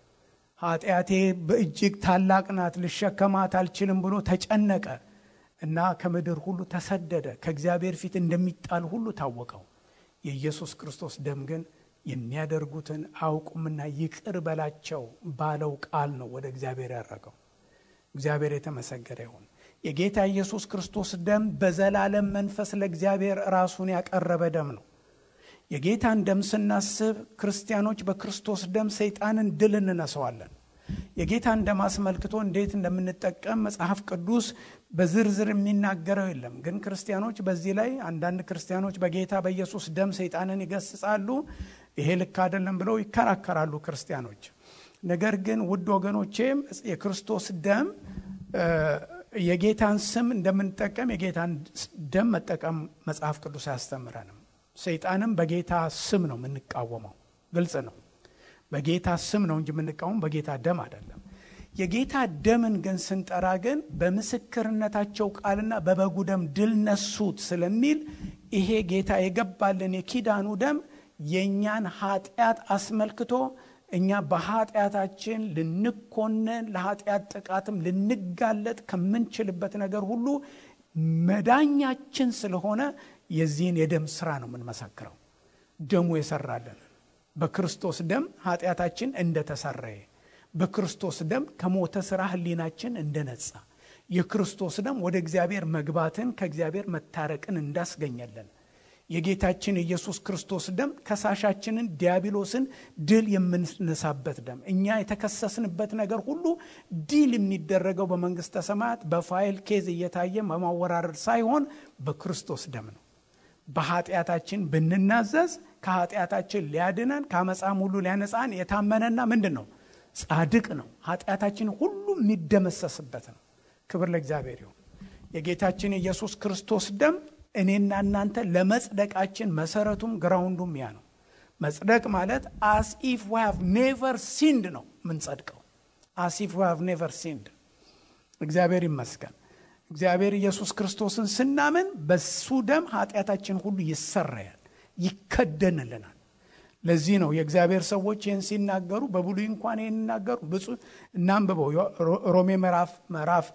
ኃጢአቴ በእጅግ ታላቅ ናት፣ ልሸከማት አልችልም ብሎ ተጨነቀ እና ከምድር ሁሉ ተሰደደ። ከእግዚአብሔር ፊት እንደሚጣል ሁሉ ታወቀው። የኢየሱስ ክርስቶስ ደም ግን የሚያደርጉትን አያውቁምና ይቅር በላቸው ባለው ቃል ነው ወደ እግዚአብሔር ያረገው። እግዚአብሔር የተመሰገነ ይሁን። የጌታ ኢየሱስ ክርስቶስ ደም በዘላለም መንፈስ ለእግዚአብሔር ራሱን ያቀረበ ደም ነው። የጌታን ደም ስናስብ ክርስቲያኖች በክርስቶስ ደም ሰይጣንን ድል እንነሳዋለን። የጌታን ደም አስመልክቶ እንዴት እንደምንጠቀም መጽሐፍ ቅዱስ በዝርዝር የሚናገረው የለም። ግን ክርስቲያኖች በዚህ ላይ አንዳንድ ክርስቲያኖች በጌታ በኢየሱስ ደም ሰይጣንን ይገስጻሉ። ይሄ ልክ አይደለም ብለው ይከራከራሉ ክርስቲያኖች። ነገር ግን ውድ ወገኖቼ የክርስቶስ ደም የጌታን ስም እንደምንጠቀም የጌታን ደም መጠቀም መጽሐፍ ቅዱስ አያስተምረንም። ሰይጣንም በጌታ ስም ነው የምንቃወመው። ግልጽ ነው። በጌታ ስም ነው እንጂ የምንቃወመው በጌታ ደም አይደለም። የጌታ ደምን ግን ስንጠራ ግን በምስክርነታቸው ቃልና በበጉ ደም ድል ነሱት ስለሚል ይሄ ጌታ የገባልን የኪዳኑ ደም የኛን ኃጢአት አስመልክቶ እኛ በኃጢአታችን ልንኮነን ለኃጢአት ጥቃትም ልንጋለጥ ከምንችልበት ነገር ሁሉ መዳኛችን ስለሆነ የዚህን የደም ሥራ ነው የምንመሰክረው። ደሙ የሰራልን በክርስቶስ ደም ኃጢአታችን እንደተሰረየ፣ በክርስቶስ ደም ከሞተ ሥራ ሕሊናችን እንደነጻ፣ የክርስቶስ ደም ወደ እግዚአብሔር መግባትን ከእግዚአብሔር መታረቅን እንዳስገኘልን፣ የጌታችን ኢየሱስ ክርስቶስ ደም ከሳሻችንን ዲያብሎስን ድል የምንነሳበት ደም፣ እኛ የተከሰስንበት ነገር ሁሉ ድል የሚደረገው በመንግሥተ ሰማያት በፋይል ኬዝ እየታየ በማወራረድ ሳይሆን በክርስቶስ ደም ነው። በኃጢአታችን ብንናዘዝ ከኃጢአታችን ሊያድነን ከአመፃም ሁሉ ሊያነጻን የታመነና ምንድን ነው? ጻድቅ ነው። ኃጢአታችን ሁሉ የሚደመሰስበት ነው። ክብር ለእግዚአብሔር ይሁን። የጌታችን ኢየሱስ ክርስቶስ ደም እኔና እናንተ ለመጽደቃችን መሰረቱም ግራውንዱም ያ ነው። መጽደቅ ማለት as if we have never sinned ነው ምንጸድቀው። as if we have never sinned። እግዚአብሔር ይመስገን። እግዚአብሔር ኢየሱስ ክርስቶስን ስናምን በሱ ደም ኃጢአታችን ሁሉ ይሰረያል፣ ይከደንልናል። ለዚህ ነው የእግዚአብሔር ሰዎች ይህን ሲናገሩ በብሉይ እንኳን ይህን ይናገሩ ብፁዕ እናንብበው። ሮሜ ምዕራፍ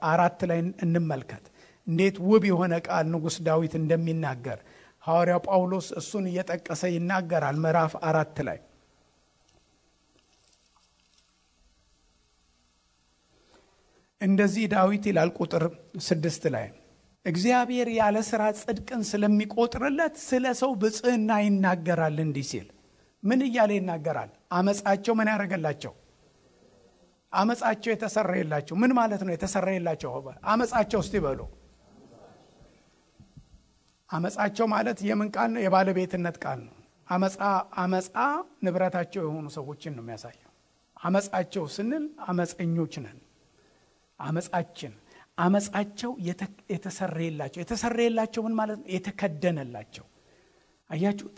4 ላይ እንመልከት እንዴት ውብ የሆነ ቃል ንጉሥ ዳዊት እንደሚናገር ሐዋርያው ጳውሎስ እሱን እየጠቀሰ ይናገራል። ምዕራፍ 4 ላይ እንደዚህ ዳዊት ይላል ቁጥር 6 ላይ እግዚአብሔር ያለ ሥራ ጽድቅን ስለሚቆጥርለት ስለ ሰው ብጽዕና ይናገራል እንዲህ ሲል። ምን እያለ ይናገራል? አመፃቸው ምን ያደረገላቸው? አመፃቸው የተሰረየላቸው። ምን ማለት ነው የተሰረየላቸው? አመፃቸው እስቲ በሉ። አመፃቸው ማለት የምን ቃል ነው? የባለቤትነት ቃል ነው። አመፃ ንብረታቸው የሆኑ ሰዎችን ነው የሚያሳየው። አመፃቸው ስንል አመፀኞች ነን። አመፃቸው የተሰረየላቸው። የተሰረየላቸው ምን ማለት ነው? የተከደነላቸው። አያችሁት?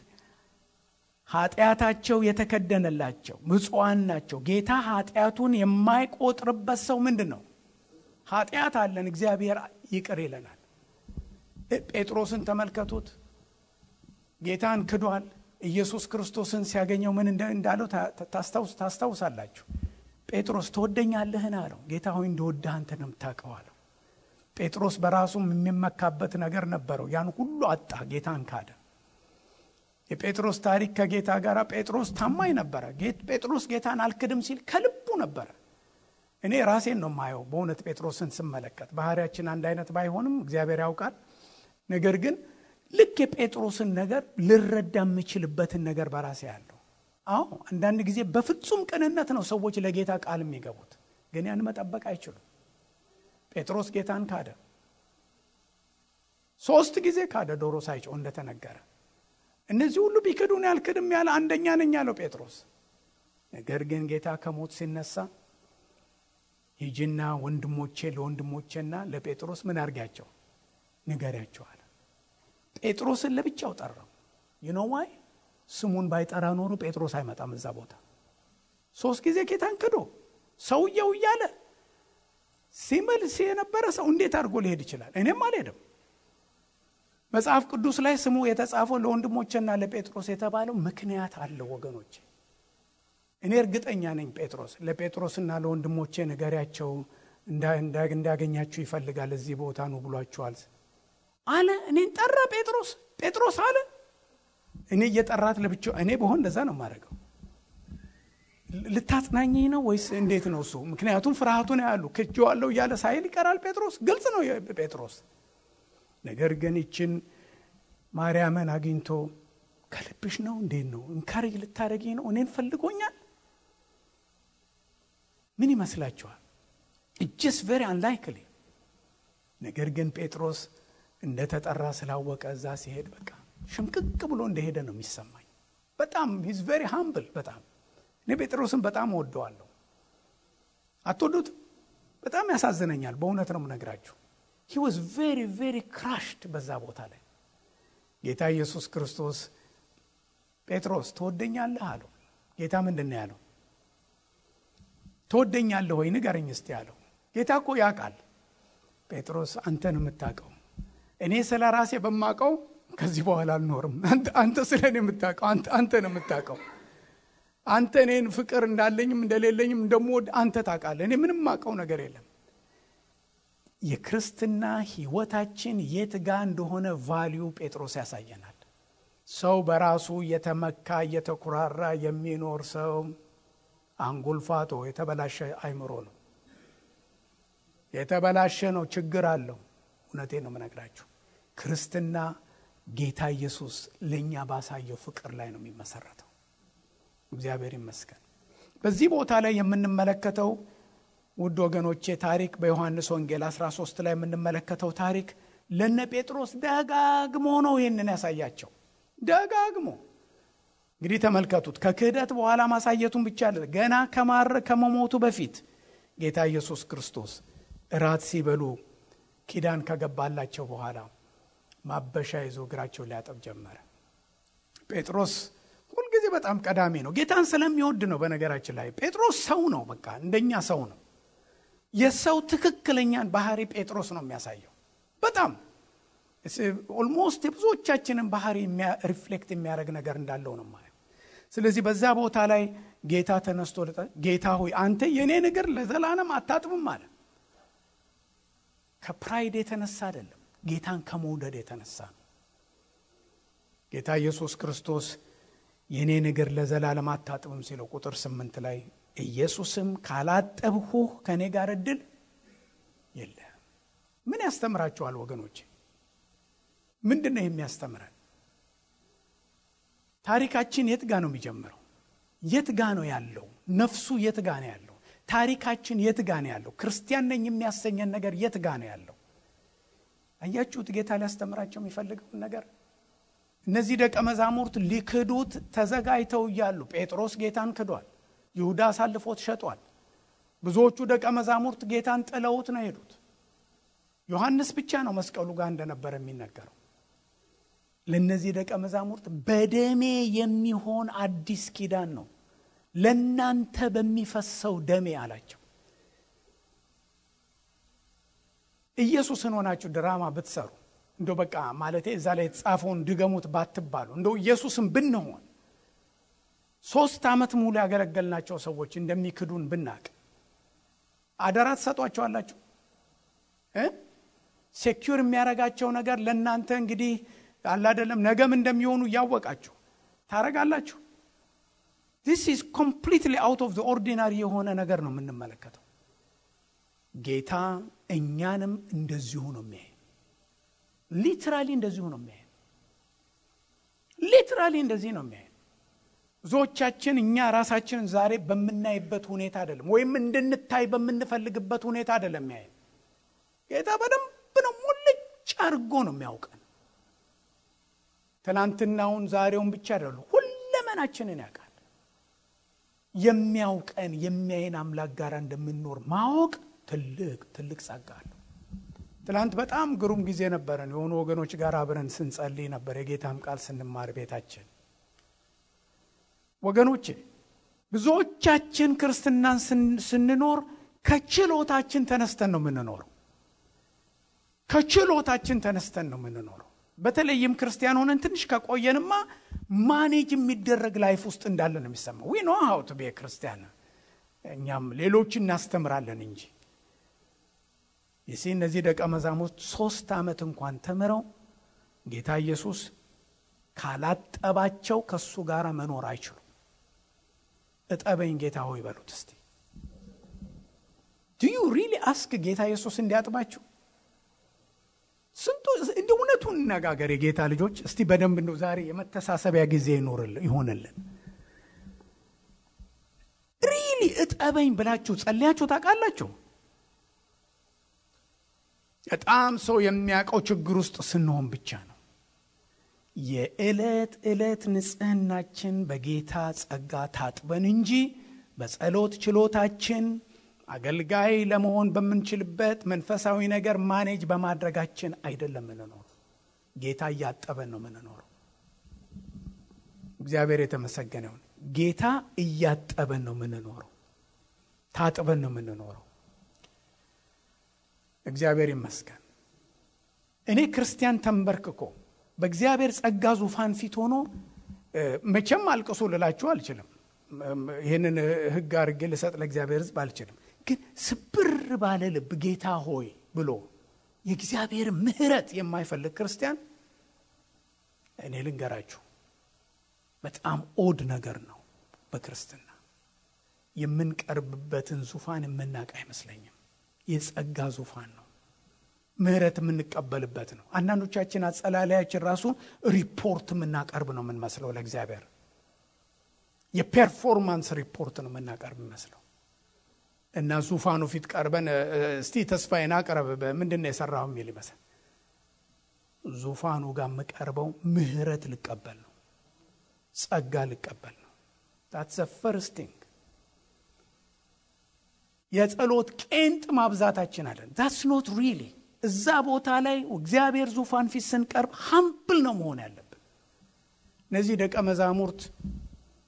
ኃጢአታቸው የተከደነላቸው ብፁዓን ናቸው። ጌታ ኃጢአቱን የማይቆጥርበት ሰው ምንድን ነው? ኃጢአት አለን፣ እግዚአብሔር ይቅር ይለናል። ጴጥሮስን ተመልከቱት። ጌታን ክዷል። ኢየሱስ ክርስቶስን ሲያገኘው ምን እንዳለው ታስታውሳላችሁ። ጴጥሮስ ትወደኛለህን አለው። ጌታ ሆይ እንደወደህ አንተ ነው የምታውቀው አለው። ጴጥሮስ በራሱም የሚመካበት ነገር ነበረው። ያን ሁሉ አጣ፣ ጌታን ካደ። የጴጥሮስ ታሪክ ከጌታ ጋር ጴጥሮስ ታማኝ ነበረ። ጴጥሮስ ጌታን አልክድም ሲል ከልቡ ነበረ። እኔ ራሴን ነው የማየው በእውነት ጴጥሮስን ስመለከት። ባህሪያችን አንድ አይነት ባይሆንም እግዚአብሔር ያውቃል። ነገር ግን ልክ የጴጥሮስን ነገር ልረዳ የምችልበትን ነገር በራሴ ያለው። አዎ አንዳንድ ጊዜ በፍጹም ቅንነት ነው ሰዎች ለጌታ ቃል የሚገቡት፣ ግን ያን መጠበቅ አይችሉም። ጴጥሮስ ጌታን ካደ። 3 ጊዜ ካደ፣ ዶሮ ሳይጮህ እንደተነገረ። እነዚህ ሁሉ ቢክዱን ያልክድም ያለ አንደኛ ነኝ ያለው ጴጥሮስ። ነገር ግን ጌታ ከሞት ሲነሳ ሂጂና ለወንድሞቼና ለጴጥሮስ ምን አርጋቸው ንገሪያቸው አለ። ጴጥሮስን ለብቻው ጠራው። you know why? ስሙን ባይጠራ ኖሮ ጴጥሮስ አይመጣም እዛ ቦታ። 3 ጊዜ ጌታን ክዶ ሰውየው እያለ ሲመልስ የነበረ ሰው እንዴት አድርጎ ሊሄድ ይችላል? እኔም አልሄድም። መጽሐፍ ቅዱስ ላይ ስሙ የተጻፈው ለወንድሞቼና ለጴጥሮስ የተባለው ምክንያት አለው ወገኖቼ። እኔ እርግጠኛ ነኝ ለጴጥሮስና ለወንድሞቼ ንገሪያቸው እንዳገኛችሁ ይፈልጋል፣ እዚህ ቦታ ነው ብሏቸዋል አለ። እኔን ጠራ ጴጥሮስ አለ። እኔ እየጠራት ለብቻው እኔ በሆን እንደዛ ነው የማደርገው። ልታጽናኘኝ ነው ወይስ እንዴት ነው እሱ? ምክንያቱም ፍርሃቱን ያሉ ክጄዋለሁ እያለ ሳይል ይቀራል ጴጥሮስ። ግልጽ ነው ጴጥሮስ። ነገር ግን ይችን ማርያምን አግኝቶ ከልብሽ ነው እንዴት ነው እንካሬጅ ልታደርጊ ነው? እኔን ፈልጎኛል? ምን ይመስላችኋል? it's just very unlikely። ነገር ግን ጴጥሮስ እንደተጠራ ስላወቀ እዛ ሲሄድ በቃ ሽምቅቅ ብሎ እንደሄደ ነው የሚሰማኝ። በጣም he's very humble። በጣም እኔ ጴጥሮስን በጣም ወደዋለሁ። አትወዱት? በጣም ያሳዝነኛል። በእውነት ነው የምነግራችሁ። he was very very crushed በዛ ቦታ ላይ። ጌታ ኢየሱስ ክርስቶስ ጴጥሮስ ትወደኛለህ አለው። ጌታ ምንድን ነው ያለው? ትወደኛለህ ወይ ንገረኝ እስቲ አለው። ጌታ እኮ ያውቃል። ጴጥሮስ አንተን የምታውቀው፣ እኔ ስለ ራሴ በማውቀው ከዚህ በኋላ አልኖርም። አንተ ስለኔ የምታውቀው አንተ ነው የምታውቀው። አንተ እኔን ፍቅር እንዳለኝም እንደሌለኝም እንደምወድ አንተ ታውቃለህ። እኔ ምንም ማውቀው ነገር የለም። የክርስትና ህይወታችን የት ጋር እንደሆነ ቫልዩ ጴጥሮስ ያሳየናል። ሰው በራሱ የተመካ የተኩራራ የሚኖር ሰው አንጎልፋቶ የተበላሸ አይምሮ ነው። የተበላሸ ነው፣ ችግር አለው። እውነቴን ነው የምነግራችሁ። ክርስትና ጌታ ኢየሱስ ለኛ ባሳየው ፍቅር ላይ ነው የሚመሰረተው። እግዚአብሔር ይመስገን። በዚህ ቦታ ላይ የምንመለከተው ውድ ወገኖቼ ታሪክ በዮሐንስ ወንጌል 13 ላይ የምንመለከተው ታሪክ ለነ ጴጥሮስ ደጋግሞ ነው ይሄንን ያሳያቸው። ደጋግሞ እንግዲህ ተመልከቱት። ከክህደት በኋላ ማሳየቱን ብቻ አይደለም፣ ገና ከመሞቱ በፊት ጌታ ኢየሱስ ክርስቶስ እራት ሲበሉ ኪዳን ከገባላቸው በኋላ ማበሻ ይዞ እግራቸውን ሊያጠብ ጀመረ። ጴጥሮስ ሁልጊዜ በጣም ቀዳሚ ነው። ጌታን ስለሚወድ ነው። በነገራችን ላይ ጴጥሮስ ሰው ነው፣ በቃ እንደኛ ሰው ነው። የሰው ትክክለኛን ባህሪ ጴጥሮስ ነው የሚያሳየው። በጣም ኦልሞስት የብዙዎቻችንን ባህሪ ሪፍሌክት የሚያደርግ ነገር እንዳለው ነው ማለት። ስለዚህ በዛ ቦታ ላይ ጌታ ተነስቶ ጌታ ሆይ አንተ የኔ እግር ለዘላለም አታጥብም አለ። ከፕራይድ የተነሳ አይደለም፣ ጌታን ከመውደድ የተነሳ ነው። ጌታ ኢየሱስ ክርስቶስ የኔ እግር ለዘላለም አታጥብም ሲለው ቁጥር 8 ላይ ኢየሱስም ካላጠብሁህ ከኔ ጋር እድል የለም። ምን ያስተምራችኋል ወገኖቼ? ምንድነው የሚያስተምረን? ታሪካችን የት ጋር ነው የሚጀምረው? የት ጋር ነው ያለው? ነፍሱ የት ጋር ነው ያለው? ታሪካችን የት ጋር ነው ያለው? ክርስቲያን ነኝ የሚያሰኘን ነገር የት ጋር ነው ያለው? አያችሁት? ጌታ ሊያስተምራቸው የሚፈልገውን ነገር። እነዚህ ደቀ መዛሙርት ሊክዱት ተዘጋጅተው እያሉ ጴጥሮስ ጌታን ክዷል። ይሁዳ አሳልፎት ሸጧል። ብዙዎቹ ደቀ መዛሙርት ጌታን ጥለውት ነው ሄዱት። ዮሐንስ ብቻ ነው መስቀሉ ጋር እንደነበረ የሚነገረው። ለነዚህ ደቀ መዛሙርት በደሜ የሚሆን አዲስ ኪዳን ነው ለናንተ በሚፈሰው ደሜ አላቸው። ኢየሱስን ሆናችሁ ድራማ ብትሰሩ እንደው በቃ ማለቴ እዛ ላይ የተጻፈውን ድገሙት ባትባሉ እንደው ኢየሱስን ብንሆን 3 ዓመት ሙሉ ያገለገልናቸው ሰዎች እንደሚክዱን ብናቅ አደራ ትሰጧቸዋላችሁ? ሴኩር የሚያረጋቸው ነገር ለናንተ እንግዲህ አለ አይደለም ነገም እንደሚሆኑ ያወቃችሁ ታረጋላችሁ? This is completely out of the ordinary የሆነ ነገር ነው የምንመለከተው። ጌታ እኛንም እንደዚሁ ነው የሚያይ። ሊትራሊ እንደዚሁ ነው የሚያይ። ሊትራሊ እንደዚህ ነው የሚያይ። ብዙዎቻችን እኛ ራሳችንን ዛሬ በምናይበት ሁኔታ አይደለም ወይም እንድንታይ በምንፈልግበት ሁኔታ አይደለም የሚያይ። ጌታ በደንብ ነው ሙልጭ አድርጎ ነው የሚያውቀን። ትናንትናውን ዛሬውን ብቻ አይደለም ሁለመናችንን ያውቃል። የሚያውቀን የሚያይን አምላክ ጋር እንደምንኖር ማወቅ ትልቅ ጸጋ ነው። ትናንት በጣም ግሩም ጊዜ ነበረን። የሆኑ ወገኖች ጋር አብረን ስንጸልይ ነበር፣ የጌታም ቃል ስንማር ቤታችን። ወገኖቼ ብዙዎቻችን ክርስትናን ስንኖር ከችሎታችን ተነስተን ነው የምንኖረው። ከችሎታችን ተነስተን ነው የምንኖረው። በተለይም ክርስቲያን ሆነን ትንሽ ከቆየንማ ማኔጅ የሚደረግ ላይፍ ውስጥ እንዳለ ነው የሚሰማው። we know how to be a Christian። እኛም ሌሎችን እናስተምራለን እንጂ እነዚህ ደቀ መዛሙርት 3 ዓመት እንኳን ተምረው ጌታ ኢየሱስ ካላጠባቸው ከሱ ጋር መኖር አይችሉም። እጠበኝ ጌታ ሆይ በሉት እስቲ። do you really ask ጌታ ኢየሱስ እንዲያጥባችሁ? ስንቱ እንደ እውነቱን ነጋገር የጌታ ልጆች እስቲ በደንብ ነው ዛሬ የመተሳሰቢያ ጊዜ ይሆንልን። ሪሊ እጠበኝ ብላችሁ ጸልያችሁ ታውቃላችሁ? በጣም ሰው የሚያውቀው ችግር ውስጥ ስንሆን ብቻ ነው። የዕለት ንጽህናችን በጌታ ጸጋ ታጥበን እንጂ በጸሎት ችሎታችን አገልጋይ ለመሆን በምንችልበት መንፈሳዊ ነገር ማኔጅ በማድረጋችን አይደለም የምንኖረው። ጌታ እያጠበን ነው የምንኖረው። እግዚአብሔር የተመሰገነ ይሁን። ጌታ እያጠበን ነው የምንኖረው። ታጥበን ነው የምንኖረው። እግዚአብሔር ይመስገን። እኔ ክርስቲያን ተንበርክኮ በእግዚአብሔር ጸጋ ዙፋን ፊት ሆኖ መቼም አልቅሱ ልላችሁ አልችልም። ይሄንን ሕግ አድርጌ ልሰጥ ለእግዚአብሔር ሕዝብ አልችልም። ግን ስብር ባለ ልብ ጌታ ሆይ ብሎ የእግዚአብሔር ምሕረት የማይፈልግ ክርስቲያን እኔ ልንገራችሁ በጣም ኦድ ነገር ነው። በክርስትና የምንቀርብበትን ዙፋን የምናውቅ አይመስለኝም። የጸጋ ዙፋን ነው። ምሕረት የምንቀበልበት ነው። አንዳንዶቻችን አጸላላያችን ራሱ ሪፖርት የምናቀርብ ነው የምንመስለው ለእግዚአብሔር። የፐርፎርማንስ ሪፖርት ነው የምናቀርብ የሚመስለው እና ዙፋኑ ፊት ቀርበን እስቲ ተስፋዬን አቅርብ ምንድነው የሰራው የሚል ይመስል ዙፋኑ ጋር መቀርበው ምሕረት ልቀበል ነው፣ ጸጋ ልቀበል ነው። that's the first thing። የጸሎት ቄንጥ ማብዛታችን አለን። that's not really እዛ ቦታ ላይ እግዚአብሔር ዙፋን ፊት ስንቀርብ ሃምብል ነው መሆን ያለብን። እነዚህ ደቀ መዛሙርት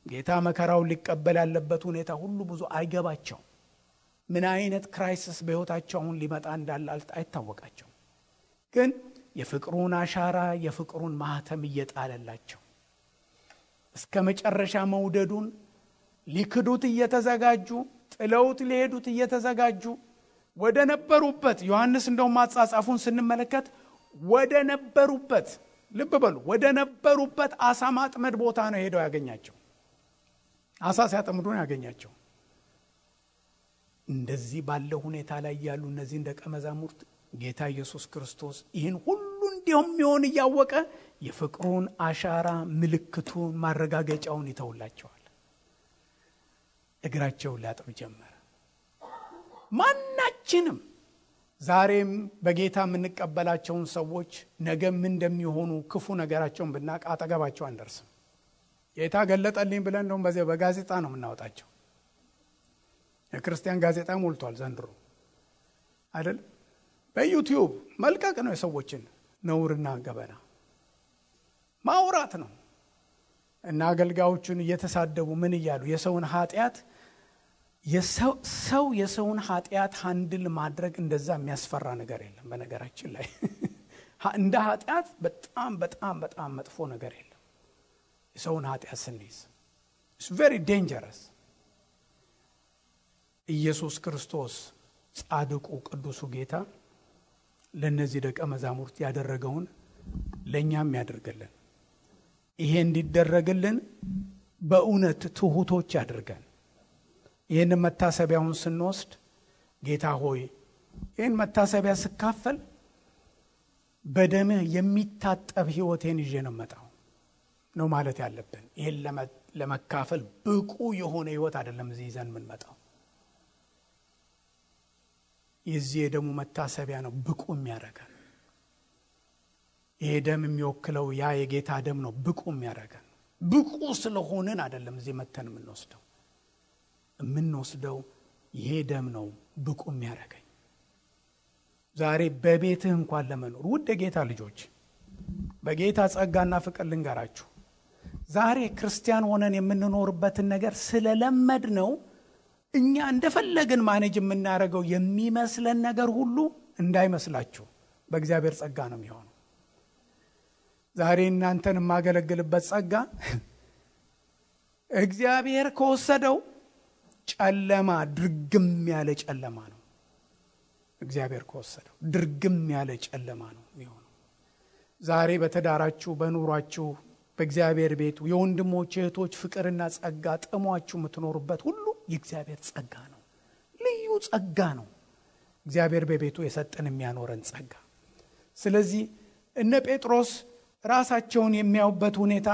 ጌታ መከራውን ሊቀበል ያለበት ሁኔታ ሁሉ ብዙ አይገባቸው። ምን አይነት ክራይሲስ በህይወታቸው አሁን ሊመጣ እንዳለ አይታወቃቸው። ግን የፍቅሩን አሻራ የፍቅሩን ማህተም እየጣለላቸው እስከ መጨረሻ መውደዱን ሊክዱት እየተዘጋጁ ጥለውት ሊሄዱት እየተዘጋጁ ወደ ነበሩበት ዮሐንስ እንደው ማጻጻፉን ስንመለከት ወደ ነበሩበት ልብ በሉ ወደ ነበሩበት አሳ ማጥመድ ቦታ ነው ሄደው ያገኛቸው። አሳ ሲያጠምዱ ነው ያገኛቸው። እንደዚህ ባለው ሁኔታ ላይ ያሉ እነዚህ ደቀ መዛሙርት ጌታ ኢየሱስ ክርስቶስ ይህን ሁሉ እንደሚሆን ያወቀ የፍቅሩን አሻራ ምልክቱን ማረጋገጫውን ይተውላቸዋል። እግራቸውን ሊያጥብ ጀመረ። ማናችንም ዛሬም በጌታ የምንቀበላቸውን ሰዎች ነገ ምን እንደሚሆኑ ክፉ ነገራቸውን ብናቅ አጠገባቸው አንደርስም። ጌታ ገለጠልኝ ብለን ነው በጋዜጣ ነው የምናወጣቸው። የክርስቲያን ጋዜጣ ሞልቷል ዘንድሮ አይደል? በዩቲዩብ መልቀቅ ነው የሰዎችን ነውርና ገበና ማውራት ነው። እና አገልጋዮቹን እየተሳደቡ ምን እያሉ የሰውን ኃጢአት የሰውን ኃጢአት ሃንድል ማድረግ እንደዛ የሚያስፈራ ነገር የለም። በነገራችን ላይ እንደ ኃጢአት በጣም በጣም በጣም መጥፎ ነገር የለም። የሰውን ኃጢአት ስንይዝ it's very dangerous። ኢየሱስ ክርስቶስ ጻድቁ ቅዱሱ ጌታ ለነዚህ ደቀ መዛሙርት ያደረገውን ለኛም ያደርገልን። ይሄ እንዲደረግልን በእውነት ትሁቶች ያደርገን። ይሄን መታሰቢያውን ስንወስድ ጌታ ሆይ ይሄን መታሰቢያ ስካፈል በደምህ የሚታጠብ ሕይወቴን ይዤ ነው መጣው ነው ማለት ያለብን። ይሄን ለመካፈል ብቁ የሆነ ሕይወት አይደለም እዚህ ይዘን ምን መጣው። የዚህ የደሙ መታሰቢያ ነው ብቁ የሚያደርገን። ይሄ ደም የሚወክለው ያ የጌታ ደም ነው ብቁ የሚያደርገን። ብቁ ስለሆነን አይደለም እዚህ መተን የምንወስደው ይሄ ደም ነው ብቁ የሚያደርገኝ። ዛሬ በቤትህ እንኳን ለመኖር ውድ የጌታ ልጆች በጌታ ጸጋና ፍቅር ልንገራችሁ። ዛሬ ክርስቲያን ሆነን የምንኖርበትን ነገር ስለለመድ ነው እኛ እንደፈለግን ማኔጅ የምናደርገው የሚመስለን ነገር ሁሉ እንዳይመስላችሁ በእግዚአብሔር ጸጋ ነው የሚሆነው። ዛሬ እናንተን የማገለግልበት ጸጋ እግዚአብሔር ከወሰደው ጨለማ ድርግም ያለ ጨለማ ነው። እግዚአብሔር ከወሰደው ድርግም ያለ ጨለማ ነው የሚሆነው። ዛሬ በተዳራችሁ በኑሯችሁ በእግዚአብሔር ቤት የወንድሞች እህቶች ፍቅርና ጸጋ ጥሟችሁ የምትኖሩበት ሁሉ የእግዚአብሔር ጸጋ ነው። ልዩ ጸጋ ነው እግዚአብሔር በቤቱ የሰጠን የሚያኖረን ጸጋ። ስለዚህ እነ ጴጥሮስ ራሳቸውን የሚያዩበት ሁኔታ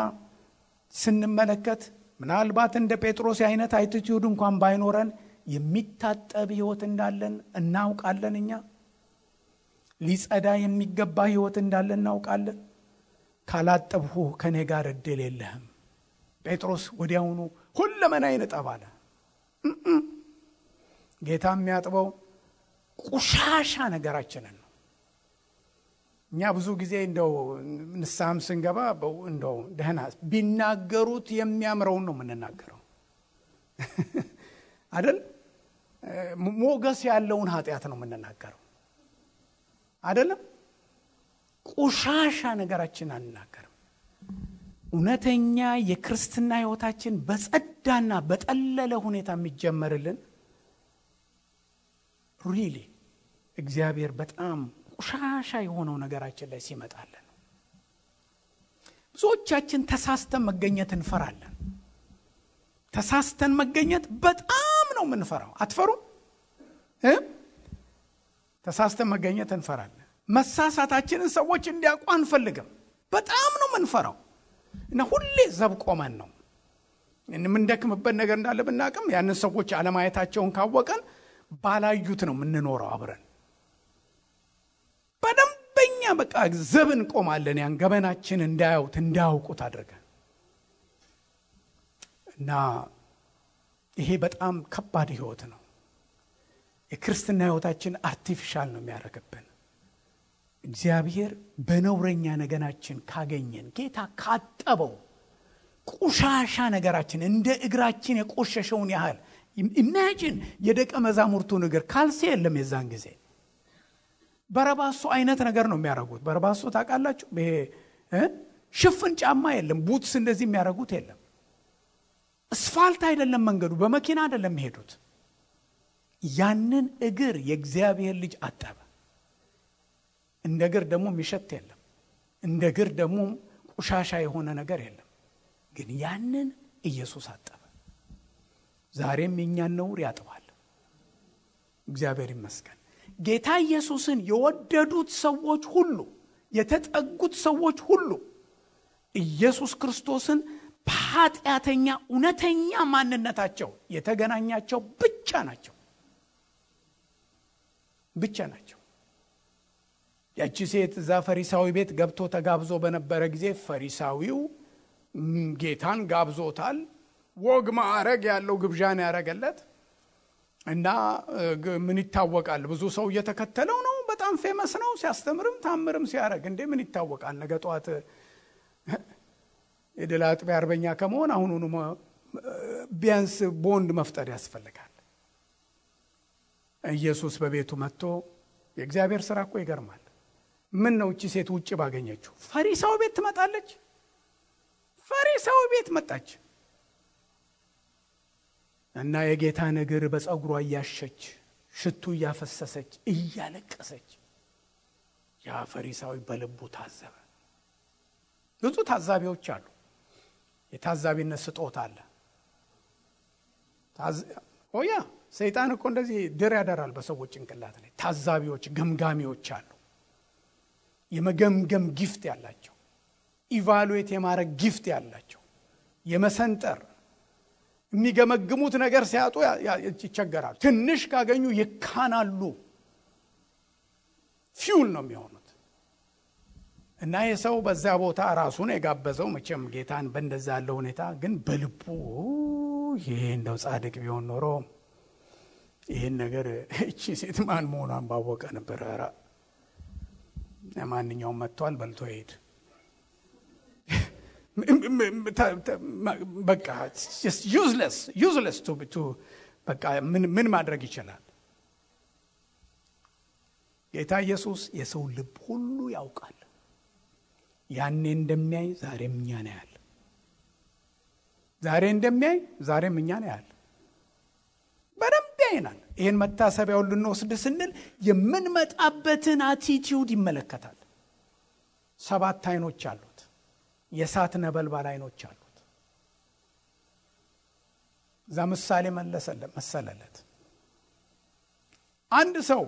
ስንመለከት ምናልባት እንደ ጴጥሮስ አይነት አቲቲዩድ እንኳን ባይኖረን የሚታጠብ ሕይወት እንዳለን እናውቃለን። እኛ ሊጸዳ የሚገባ ሕይወት እንዳለን እናውቃለን። ካላጠብሁ ከኔ ጋር እድል የለህም። ጴጥሮስ ወዲያውኑ ሁለመናዬን እጠብ አለ። ጌታ የሚያጥበው ቆሻሻ ነገራችንን ነው። እኛ ብዙ ጊዜ እንደው ንስሐም ስንገባ እንደው ደህና ቢናገሩት የሚያምረውን ነው የምንናገረው አይደል? ሞገስ ያለውን ኃጢአት ነው የምንናገረው አይደለም? ቆሻሻ ነገራችን አንናገርም። እውነተኛ የክርስትና ሕይወታችን በጸዳና በጠለለ ሁኔታ የሚጀመርልን ሪሊ እግዚአብሔር በጣም ቆሻሻ የሆነው ነገራችን ላይ ሲመጣልን። ብዙዎቻችን ተሳስተን መገኘት እንፈራለን። ተሳስተን መገኘት በጣም ነው የምንፈራው። አትፈሩም? ተሳስተን መገኘት እንፈራለን። መሳሳታችንን ሰዎች እንዲያውቁ አንፈልግም። በጣም ነው የምንፈራው እና ሁሌ ዘብ ቆመን ነው የምንደክምበት ነገር እንዳለ ብናቅም ያንን ሰዎች አለማየታቸውን ካወቀን ባላዩት ነው የምንኖረው አብረን። በደንበኛ በቃ ዘብ እንቆማለን ያን ገበናችን እንዳያዩት እንዳያውቁት አድርገን እና ይሄ በጣም ከባድ ህይወት ነው። የክርስትና ህይወታችን አርቲፊሻል ነው የሚያደርግብን። እግዚአብሔር በነውረኛ ነገናችን ካገኘን ጌታ ካጠበው ቆሻሻ ነገራችን እንደ እግራችን የቆሸሸውን ያህል ኢማጂን የደቀ መዛሙርቱን እግር ካልሲ የለም የዛን ጊዜ በረባሶ አይነት ነገር ነው የሚያደርጉት። በረባሶ ታውቃላችሁ? ይሄ ሽፍን ጫማ የለም፣ ቡትስ እንደዚህ የሚያደርጉት የለም። አስፋልት አይደለም መንገዱ፣ በመኪና አይደለም የሚሄዱት። ያንን እግር የእግዚአብሔር ልጅ አጠበ። እንደ እግር ደግሞ የሚሸት የለም፣ እንደ እግር ደግሞ ቆሻሻ የሆነ ነገር የለም። ግን ያንን ኢየሱስ አጠበ። ዛሬም የኛን ነውር ያጥባል። እግዚአብሔር ይመስገን። ጌታ ኢየሱስን የወደዱት ሰዎች ሁሉ፣ የተጠጉት ሰዎች ሁሉ ኢየሱስ ክርስቶስን በኃጢአተኛ እውነተኛ ማንነታቸው የተገናኛቸው ብቻ ናቸው። ያቺ ሴት እዛ ፈሪሳዊ ቤት ገብቶ ተጋብዞ በነበረ ጊዜ ፈሪሳዊው ጌታን ጋብዞታል። ወግ ማዕረግ ያለው ግብዣን ያረገለት እና ምን ይታወቃል? ብዙ ሰው እየተከተለው ነው። በጣም ፌመስ ነው። ሲያስተምርም ታምርም ሲያረግ እንዴ ምን ይታወቃል? ነገ ጧት የድል አጥቢያ አርበኛ ከመሆን አሁኑኑ ቢያንስ ቦንድ መፍጠር ያስፈልጋል። ኢየሱስ በቤቱ መጥቶ የእግዚአብሔር ሥራ እኮ ይገርማል። ምን ነው እቺ ሴት ውጪ ባገኘችው ፈሪሳው ቤት ትመጣለች? ፈሪሳው ቤት መጣች እና የጌታን እግር በፀጉሯ እያሸች ሽቱ እያፈሰሰች እያለቀሰች ያ ፈሪሳዊ በልቡ ታዘበ። ብዙ ታዛቢዎች አሉ። የታዛቢነት ስጦታ አለ። ኦያ ሰይጣን እኮ እንደዚህ ድር ያደራል በሰዎች ጭንቅላት ላይ። ታዛቢዎች፣ ገምጋሚዎች አሉ። የመገምገም ጊፍት ያላቸው፣ ኢቫሉዌት የማድረግ ጊፍት ያላቸው፣ የመሰንጠር የሚገመግሙት ነገር ሲያጡ ይቸገራሉ። ትንሽ ካገኙ ይካናሉ። ፊውል ነው የሚሆኑት። እና የሰው በዛ ቦታ ራሱን የጋበዘው መቼም ጌታን በእንደዛ ያለው ሁኔታ ግን በልቡ ይሄ እንደው ጻድቅ ቢሆን ኖሮ ይሄን ነገር እቺ ሴት ማን መሆኗን ባወቀ ነበር። ራ ማንኛውም መጥቷል በልቶ ሄድ በቃ just useless to በቃ ምን ማድረግ ይችላል? ጌታ ኢየሱስ የሰው ልብ ሁሉ ያውቃል። ያኔ እንደሚያይ ዛሬም እኛን ያያል። ዛሬ እንደሚያይ ዛሬም እኛን ያያል። በደንብ ያይናል። ይሄን መታሰቢያውን ልንወስድ ስንል የምንመጣበትን አቲቲዩድ ይመለከታል። 7 አይኖች አሉት። የእሳት ነበልባል አይኖች አሉት። እዛ ምሳሌ መሰለለት። አንድ ሰው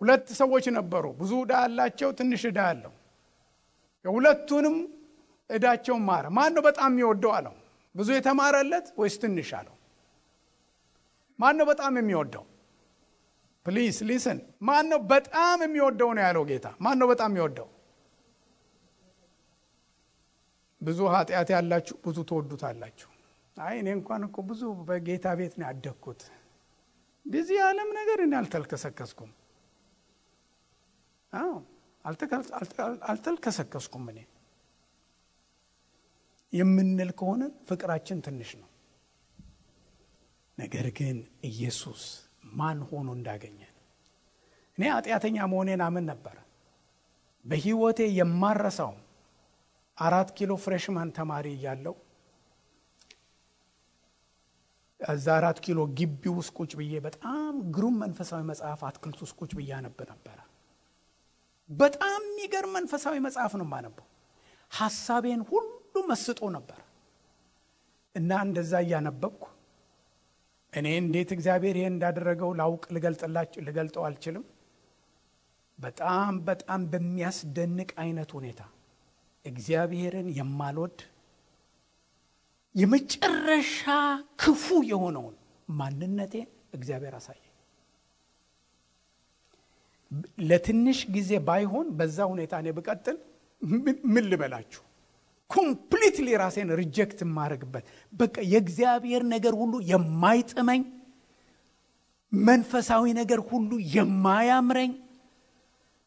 2 ሰዎች ነበሩ። ብዙ ዕዳ ያላቸው፣ ትንሽ ዕዳ ያለው። የሁለቱንም ዕዳቸውን ማረ። ማን ነው በጣም የሚወደው አለው? ብዙ የተማረለት ወይስ ትንሽ አለው? ማን ነው በጣም የሚወደው? ፕሊዝ ሊስን። ማን ነው በጣም የሚወደው ነው ያለው ጌታ። ማን ነው በጣም የሚወደው? ብዙ ኃጢአት ያላችሁ ብዙ ተወዱታላችሁ። አይ እኔ እንኳን እኮ ብዙ በጌታ ቤት ነው ያደግኩት፣ በዚህ ዓለም ነገር እኔ አልተልከሰከስኩም። አልተልከሰከስኩም እኔ የምንል ከሆነ ፍቅራችን ትንሽ ነው። ነገር ግን ኢየሱስ ማን ሆኖ እንዳገኘን እኔ ኃጢአተኛ መሆኔን አምን ነበር። በህይወቴ የማረሳው 4 ኪሎ ፍሬሽማን ተማሪ እያለሁ እዛ 4 ኪሎ ግቢ ውስጥ ቁጭ ብዬ በጣም ግሩም መንፈሳዊ መጽሐፍ አትክልት ውስጥ ቁጭ ብዬ አነብ ነበር። በጣም የሚገርም መንፈሳዊ መጽሐፍ ነው የማነበው። ሐሳቤን ሁሉ መስጦ ነበር እና እንደዛ እያነበብኩ እኔ እንዴት እግዚአብሔር ይሄን እንዳደረገው ላውቅ ልገልጠው አልችልም። በጣም በጣም በሚያስደንቅ አይነት ሁኔታ እግዚአብሔርን የማልወድ የመጨረሻ ክፉ የሆነውን ማንነቴን እግዚአብሔር አሳየኝ። ለትንሽ ጊዜ ባይሆን በዛ ሁኔታ እኔ ብቀጥል ምን ልበላችሁ ኮምፕሊትሊ ራሴን ሪጀክት ማድረግበት በቃ የእግዚአብሔር ነገር ሁሉ የማይጥመኝ መንፈሳዊ ነገር ሁሉ የማያምረኝ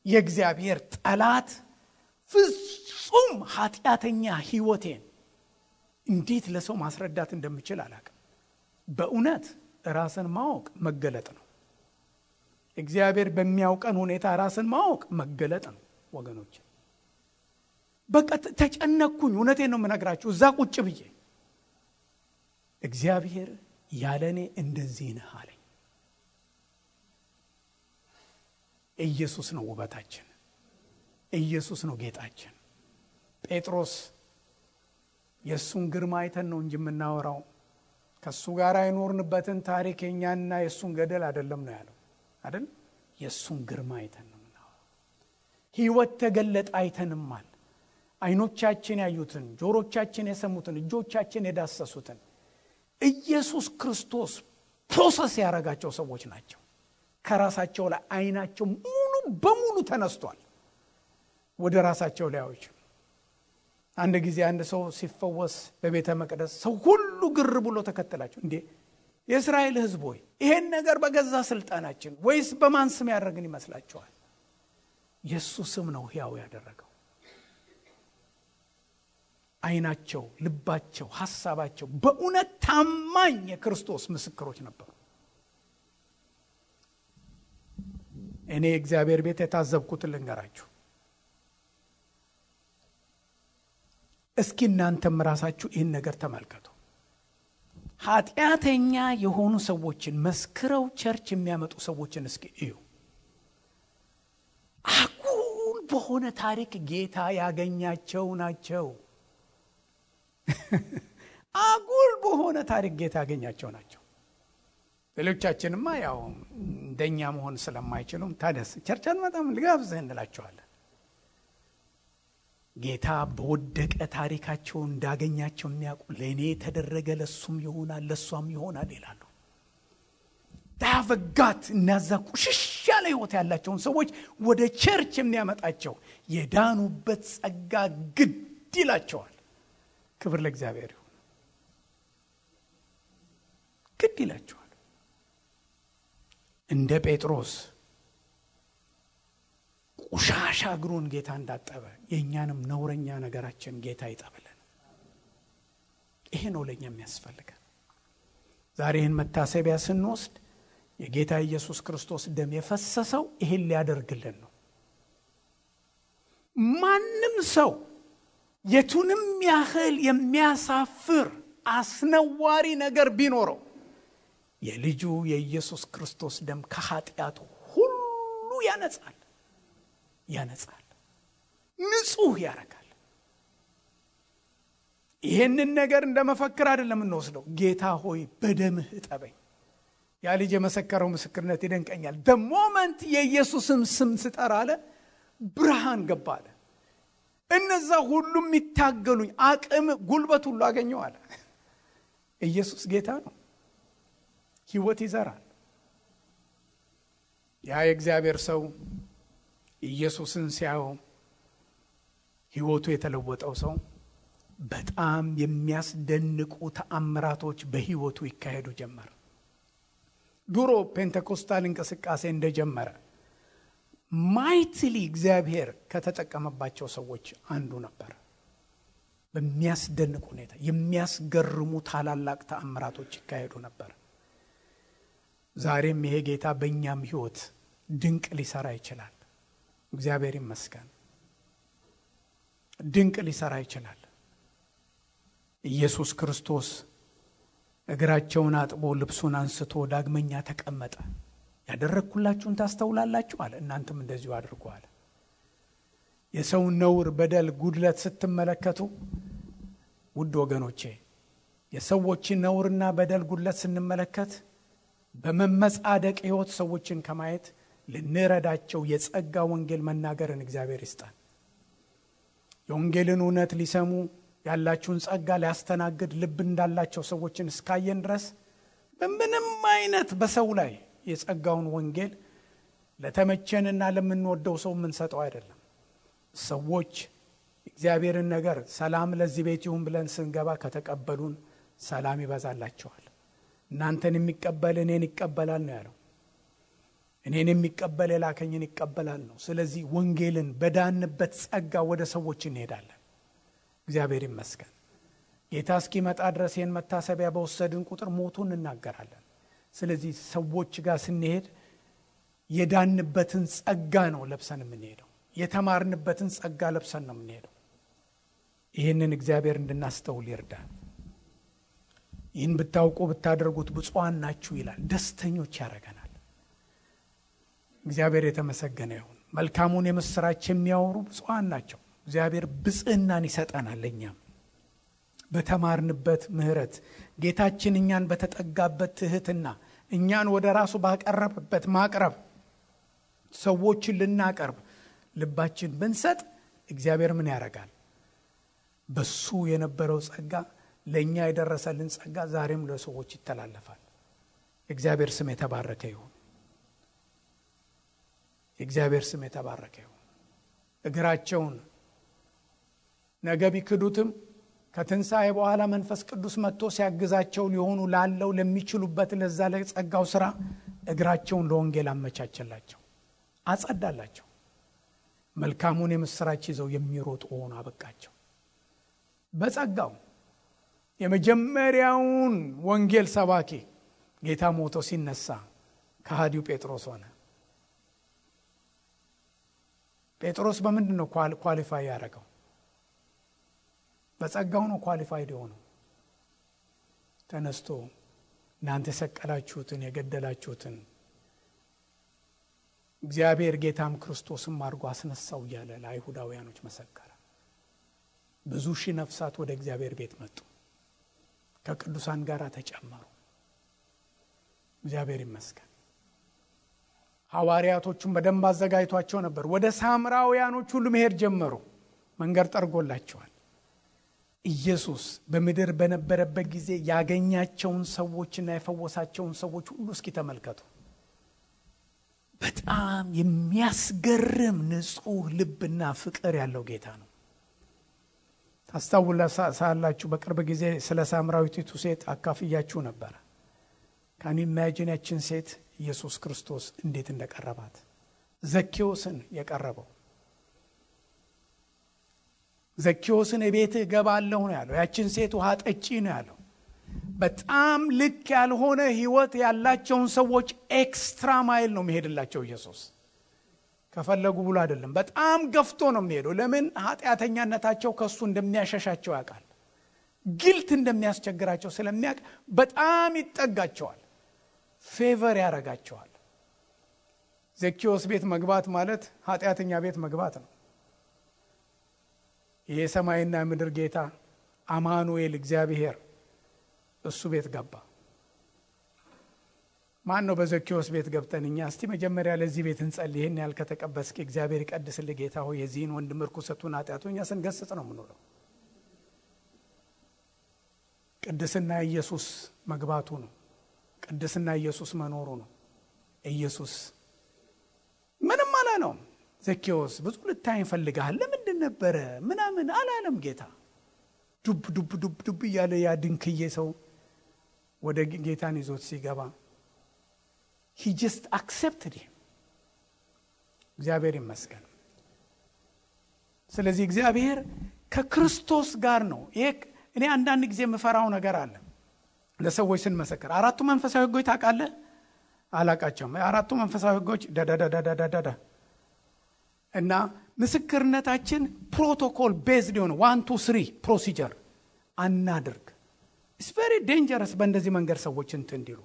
የእግዚአብሔር ጠላት ፍጹም ኃጢአተኛ ህይወቴን እንዴት ለሰው ማስረዳት እንደምችል አላውቅም። በእውነት ራስን ማወቅ መገለጥ ነው። እግዚአብሔር በሚያውቀን ሁኔታ ራስን ማወቅ መገለጥ ነው ወገኖች። በቃ ተጨነቅኩኝ። እውነቴን ነው የምነግራችሁ። እዛ ቁጭ ብዬ እግዚአብሔር ያለኔ እንደዚህ ነህ አለኝ። ኢየሱስ ነው ውበታችን፣ ኢየሱስ ነው ጌጣችን። ጴጥሮስ የሱን ግርማ አይተን ነው እንጂ የምናወራው ከሱ ጋር አይኖርንበትን ታሪክ የኛና የሱን ገደል አይደለም ነው ያለው አይደል? የሱን ግርማ አይተን ነው የምናወራው። ህይወት ተገለጠ አይተንማል። አይኖቻችን ያዩትን፣ ጆሮቻችን የሰሙትን፣ እጆቻችን የዳሰሱትን ኢየሱስ ክርስቶስ ፕሮሰስ ያደረጋቸው ሰዎች ናቸው። ከራሳቸው ላይ አይናቸው ሙሉ በሙሉ ተነስቷል። ወደ ራሳቸው ላይ ያዩት። አንድ ጊዜ አንድ ሰው ሲፈወስ በቤተ መቅደስ ሰው ሁሉ ግር ብሎ ተከተላቸው። እንዴ የእስራኤል ህዝብ ሆይ ይሄን ነገር በገዛ ስልጣናችን ወይስ በማን ስም ያደረግን ይመስላችኋል? ኢየሱስ ስም ነው ሕያው ያደረገው። አይናቸው፣ ልባቸው፣ ሐሳባቸው በእውነት ታማኝ የክርስቶስ ምስክሮች ነበሩ። እኔ እግዚአብሔር ቤት የታዘብኩትን ልንገራችሁ። እስኪ እናንተም ራሳችሁ ይህን ነገር ተመልከቱ። ኃጢአተኛ የሆኑ ሰዎችን መስክረው ቸርች የሚያመጡ ሰዎችን እስኪ እዩ። አጉል በሆነ ታሪክ ጌታ ያገኛቸው ናቸው። አጉል በሆነ ታሪክ ጌታ ያገኛቸው ናቸው። ሌሎቻችንማ ያው እንደኛ መሆን ስለማይችሉም ታደስ ቸርቻን መጣም ልጋብዘህ እንላቸዋለን። ጌታ በወደቀ ታሪካቸው እንዳገኛቸው የሚያውቁ ለእኔ ተደረገ ለሱም ይሆናል ለሷም ይሆናል ይላሉ። ዳፈጋት እናዛ ቁሽሽ ያለ ህይወት ያላቸውን ሰዎች ወደ ቸርች የሚያመጣቸው የዳኑበት ጸጋ ግድ ይላቸዋል። ክብር ለእግዚአብሔር ይሁን። ግድ ይላቸዋል። እንደ ጴጥሮስ ቆሻሻ እግሩን ጌታ እንዳጠበ የኛንም ነውረኛ ነገራችን ጌታ ይጠብልን። ይሄ ነው ለኛ የሚያስፈልገን። ዛሬ ይህን መታሰቢያ ስንወስድ የጌታ ኢየሱስ ክርስቶስ ደም የፈሰሰው ይሄን ሊያደርግልን ነው። ማንም ሰው የቱንም ያህል የሚያሳፍር አስነዋሪ ነገር ቢኖረው የልጁ የኢየሱስ ክርስቶስ ደም ከኃጢአቱ ሁሉ ያነጻል፣ ንጹህ ያረጋል። ይሄንን ነገር እንደመፈክር አይደለም እንወስደው። ጌታ ሆይ በደምህ እጠበኝ። ያ ልጅ የመሰከረው ምስክርነት ይደንቀኛል። the moment የኢየሱስን ስም ስጠራ አለ ብርሃን ገባ አለ። እነዛ ሁሉም ይታገሉኝ አቅም ጉልበት ሁሉ አገኘው አለ። ኢየሱስ ጌታ ነው። ሕይወት ይዘራል። ያ የእግዚአብሔር ሰው ኢየሱስን ሲያየው ሕይወቱ የተለወጠው ሰው በጣም የሚያስደንቁ ተአምራቶች በሕይወቱ ይካሄዱ ጀመር። ድሮ ፔንቴኮስታል እንቅስቃሴ እንደጀመረ ማይትሊ እግዚአብሔር ከተጠቀመባቸው ሰዎች አንዱ ነበር። በሚያስደንቅ ሁኔታ የሚያስገርሙ ታላላቅ ተአምራቶች ይካሄዱ ነበር። ዛሬም ይሄ ጌታ በእኛም ሕይወት ድንቅ ሊሰራ ይችላል። እግዚአብሔር ይመስገን። ድንቅ ሊሰራ ይችላል። ኢየሱስ ክርስቶስ እግራቸውን አጥቦ ልብሱን አንስቶ ዳግመኛ ተቀመጠ። ያደረግኩላችሁን ታስተውላላችሁ አለ፣ እናንተም እንደዚሁ አድርጉ አለ። የሰውን ነውር፣ በደል፣ ጉድለት ስትመለከቱ ውድ ወገኖቼ የሰዎችን ነውርና በደል ጉድለት ስንመለከት በመመጻደቅ ሕይወት ሰዎችን ከማየት ልንረዳቸው የጸጋ ወንጌል መናገርን እግዚአብሔር ይስጣል። የወንጌልን እውነት ሊሰሙ ያላችሁን ጸጋ ሊያስተናግድ ልብ እንዳላቸው ሰዎችን እስካየን ድረስ በምንም አይነት በሰው ላይ የጸጋውን ወንጌል ለተመቸንና ለምንወደው ሰው የምንሰጠው አይደለም። ሰዎች እግዚአብሔርን ነገር ሰላም ለዚህ ቤት ይሁን ብለን ስንገባ ከተቀበሉን ሰላም ይበዛላቸዋል። እናንተን የሚቀበል እኔን ይቀበላል ነው ያለው። እኔን የሚቀበል የላከኝን ይቀበላል ነው። ስለዚህ ወንጌልን በዳንበት ጸጋ ወደ ሰዎች እንሄዳለን። እግዚአብሔር ይመስገን። ጌታ እስኪመጣ ድረስ ይህን መታሰቢያ በወሰድን ቁጥር ሞቱን እናገራለን። ስለዚህ ሰዎች ጋር ስንሄድ የዳንበትን ጸጋ ነው ለብሰን የምንሄደው። የተማርንበትን ጸጋ ለብሰን ነው የምንሄደው። ይህንን እግዚአብሔር እንድናስተውል ይርዳል። ይህን ብታውቁ ብታደርጉት ብፁዓን ናችሁ ይላል። ደስተኞች ያደርገናል። እግዚአብሔር የተመሰገነ ይሁን። መልካሙን የምስራች የሚያወሩ ብፁዓን ናቸው። እግዚአብሔር ብጽዕናን ይሰጠናል። እኛም በተማርንበት ምሕረት ጌታችን እኛን በተጠጋበት ትህትና እኛን ወደ ራሱ ባቀረበበት ማቅረብ ሰዎችን ልናቀርብ ልባችን ብንሰጥ እግዚአብሔር ምን ያደርጋል? በሱ የነበረው ጸጋ ለእኛ የደረሰልን ጸጋ ዛሬም ለሰዎች ይተላለፋል። የእግዚአብሔር ስም የተባረከ ይሁን። የእግዚአብሔር ስም የተባረከ ይሁን። እግራቸውን ነገ ቢክዱትም ከትንሣኤ በኋላ መንፈስ ቅዱስ መጥቶ ሲያግዛቸው ሊሆኑ ላለው ለሚችሉበት ለዛ ለጸጋው ሥራ እግራቸውን ለወንጌል አመቻቸላቸው፣ አጸዳላቸው። መልካሙን የምስራች ይዘው የሚሮጡ ሆኑ አበቃቸው። በጸጋው የመጀመሪያውን ወንጌል ሰባኪ ጌታ ሞቶ ሲነሳ ከሃዲው ጴጥሮስ ሆነ። ጴጥሮስ በምንድን ነው ኳሊፋይ ያደረገው? በጸጋው ነው ኳሊፋይድ የሆነው። ተነስቶ እናንተ የሰቀላችሁትን የገደላችሁትን እግዚአብሔር ጌታም ክርስቶስም አድርጎ አስነሳው እያለ ለአይሁዳውያኖች መሰከረ። ብዙ ሺህ ነፍሳት ወደ እግዚአብሔር ቤት መጡ፣ ከቅዱሳን ጋር ተጨመሩ። እግዚአብሔር ይመስገን። ሐዋርያቶቹም በደንብ አዘጋጅቷቸው ነበር። ወደ ሳምራውያኖች ሁሉ መሄድ ጀመሩ። መንገድ ጠርጎላቸዋል። ኢየሱስ በምድር በነበረበት ጊዜ ያገኛቸውን ሰዎችና የፈወሳቸውን ሰዎች ሁሉ እስኪ ተመልከቱ። በጣም የሚያስገርም ንጹሕ ልብና ፍቅር ያለው ጌታ ነው። ታስታውሳላችሁ፣ በቅርብ ጊዜ ስለ ሳምራዊቲቱ ሴት አካፍያችሁ ነበር። ካን ኢማጂን ያችን ሴት ኢየሱስ ክርስቶስ እንዴት እንደቀረባት። ዘኬዎስን የቀረበው ዘኬዎስን እቤትህ ገባለሁ ነው ያለው። ያችን ሴት ውሃ ጠጪ ነው ያለው። በጣም ልክ ያልሆነ ህይወት ያላቸውን ሰዎች ኤክስትራ ማይል ነው የሚሄድላቸው ኢየሱስ። ከፈለጉ ብሎ አይደለም፣ በጣም ገፍቶ ነው የሚሄደው። ለምን? ኃጢአተኛነታቸው ከሱ እንደሚያሸሻቸው ያውቃል። ግልት እንደሚያስቸግራቸው ስለሚያውቅ በጣም ይጠጋቸዋል፣ ፌቨር ያደርጋቸዋል። ዘኬዎስ ቤት መግባት ማለት ኃጢአተኛ ቤት መግባት ነው። ይሄ ሰማይና ምድር ጌታ አማኑኤል እግዚአብሔር እሱ ቤት ገባ። ማን ነው በዘኬዎስ ቤት ገብተን እኛ እስቲ መጀመሪያ ለዚህ ቤት እንጸልይ፣ ይሄን ያህል ከተቀበስክ እግዚአብሔር ይቀድስልህ ጌታ ሆይ የዚህን ወንድም ርኩሰቱን ኃጢአቱን እኛ ስንገስጽ ነው የምንውለው። ቅድስና ኢየሱስ መግባቱ ነው። ቅድስና ኢየሱስ መኖሩ ነው። ኢየሱስ ምንም አላለውም። ዘኬዎስ ብዙ ልታይ ፈልጋል ለምንድን ነበረ ምናምን አላለም ጌታ። ዱብ ዱብ ዱብ ዱብ እያለ ያ ድንክዬ ሰው ወደ ጌታን ይዞት ሲገባ he just accepted him። እግዚአብሔር ይመስገን። ስለዚህ እግዚአብሔር ከክርስቶስ ጋር ነው። ይሄ እኔ አንዳንድ ጊዜ የምፈራው ነገር አለ። ለሰዎች ስንመሰክር አራቱ መንፈሳዊ ሕጎች ታውቃለህ? አላቃቸውም። አራቱ መንፈሳዊ ሕጎች ዳዳዳዳዳዳዳ እና ምስክርነታችን ፕሮቶኮል ቤዝድ የሆነ 1 2 3 ፕሮሲጀር አናድርግ። ኢትስ ቬሪ ዴንጀረስ በእንደዚህ መንገድ ሰዎች እንዲሉ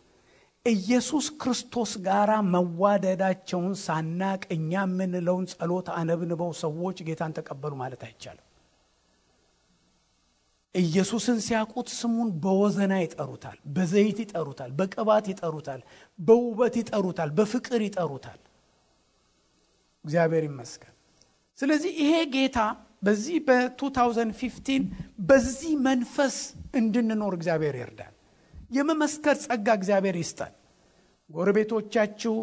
ኢየሱስ ክርስቶስ ጋራ መዋደዳቸውን ሳናቅ እኛ የምንለውን ጸሎት አነብንበው ሰዎች ጌታን ተቀበሉ ማለት አይቻልም። ኢየሱስን ሲያውቁት ስሙን በወዘና ይጠሩታል፣ በዘይት ይጠሩታል፣ በቅባት ይጠሩታል፣ በውበት ይጠሩታል፣ በፍቅር ይጠሩታል። እግዚአብሔር ይመስገን። ስለዚህ ይሄ ጌታ በዚህ በ2015 በዚህ መንፈስ እንድንኖር እግዚአብሔር ይርዳል። የመመስከር ጸጋ እግዚአብሔር ይስጣል። ጎረቤቶቻችሁ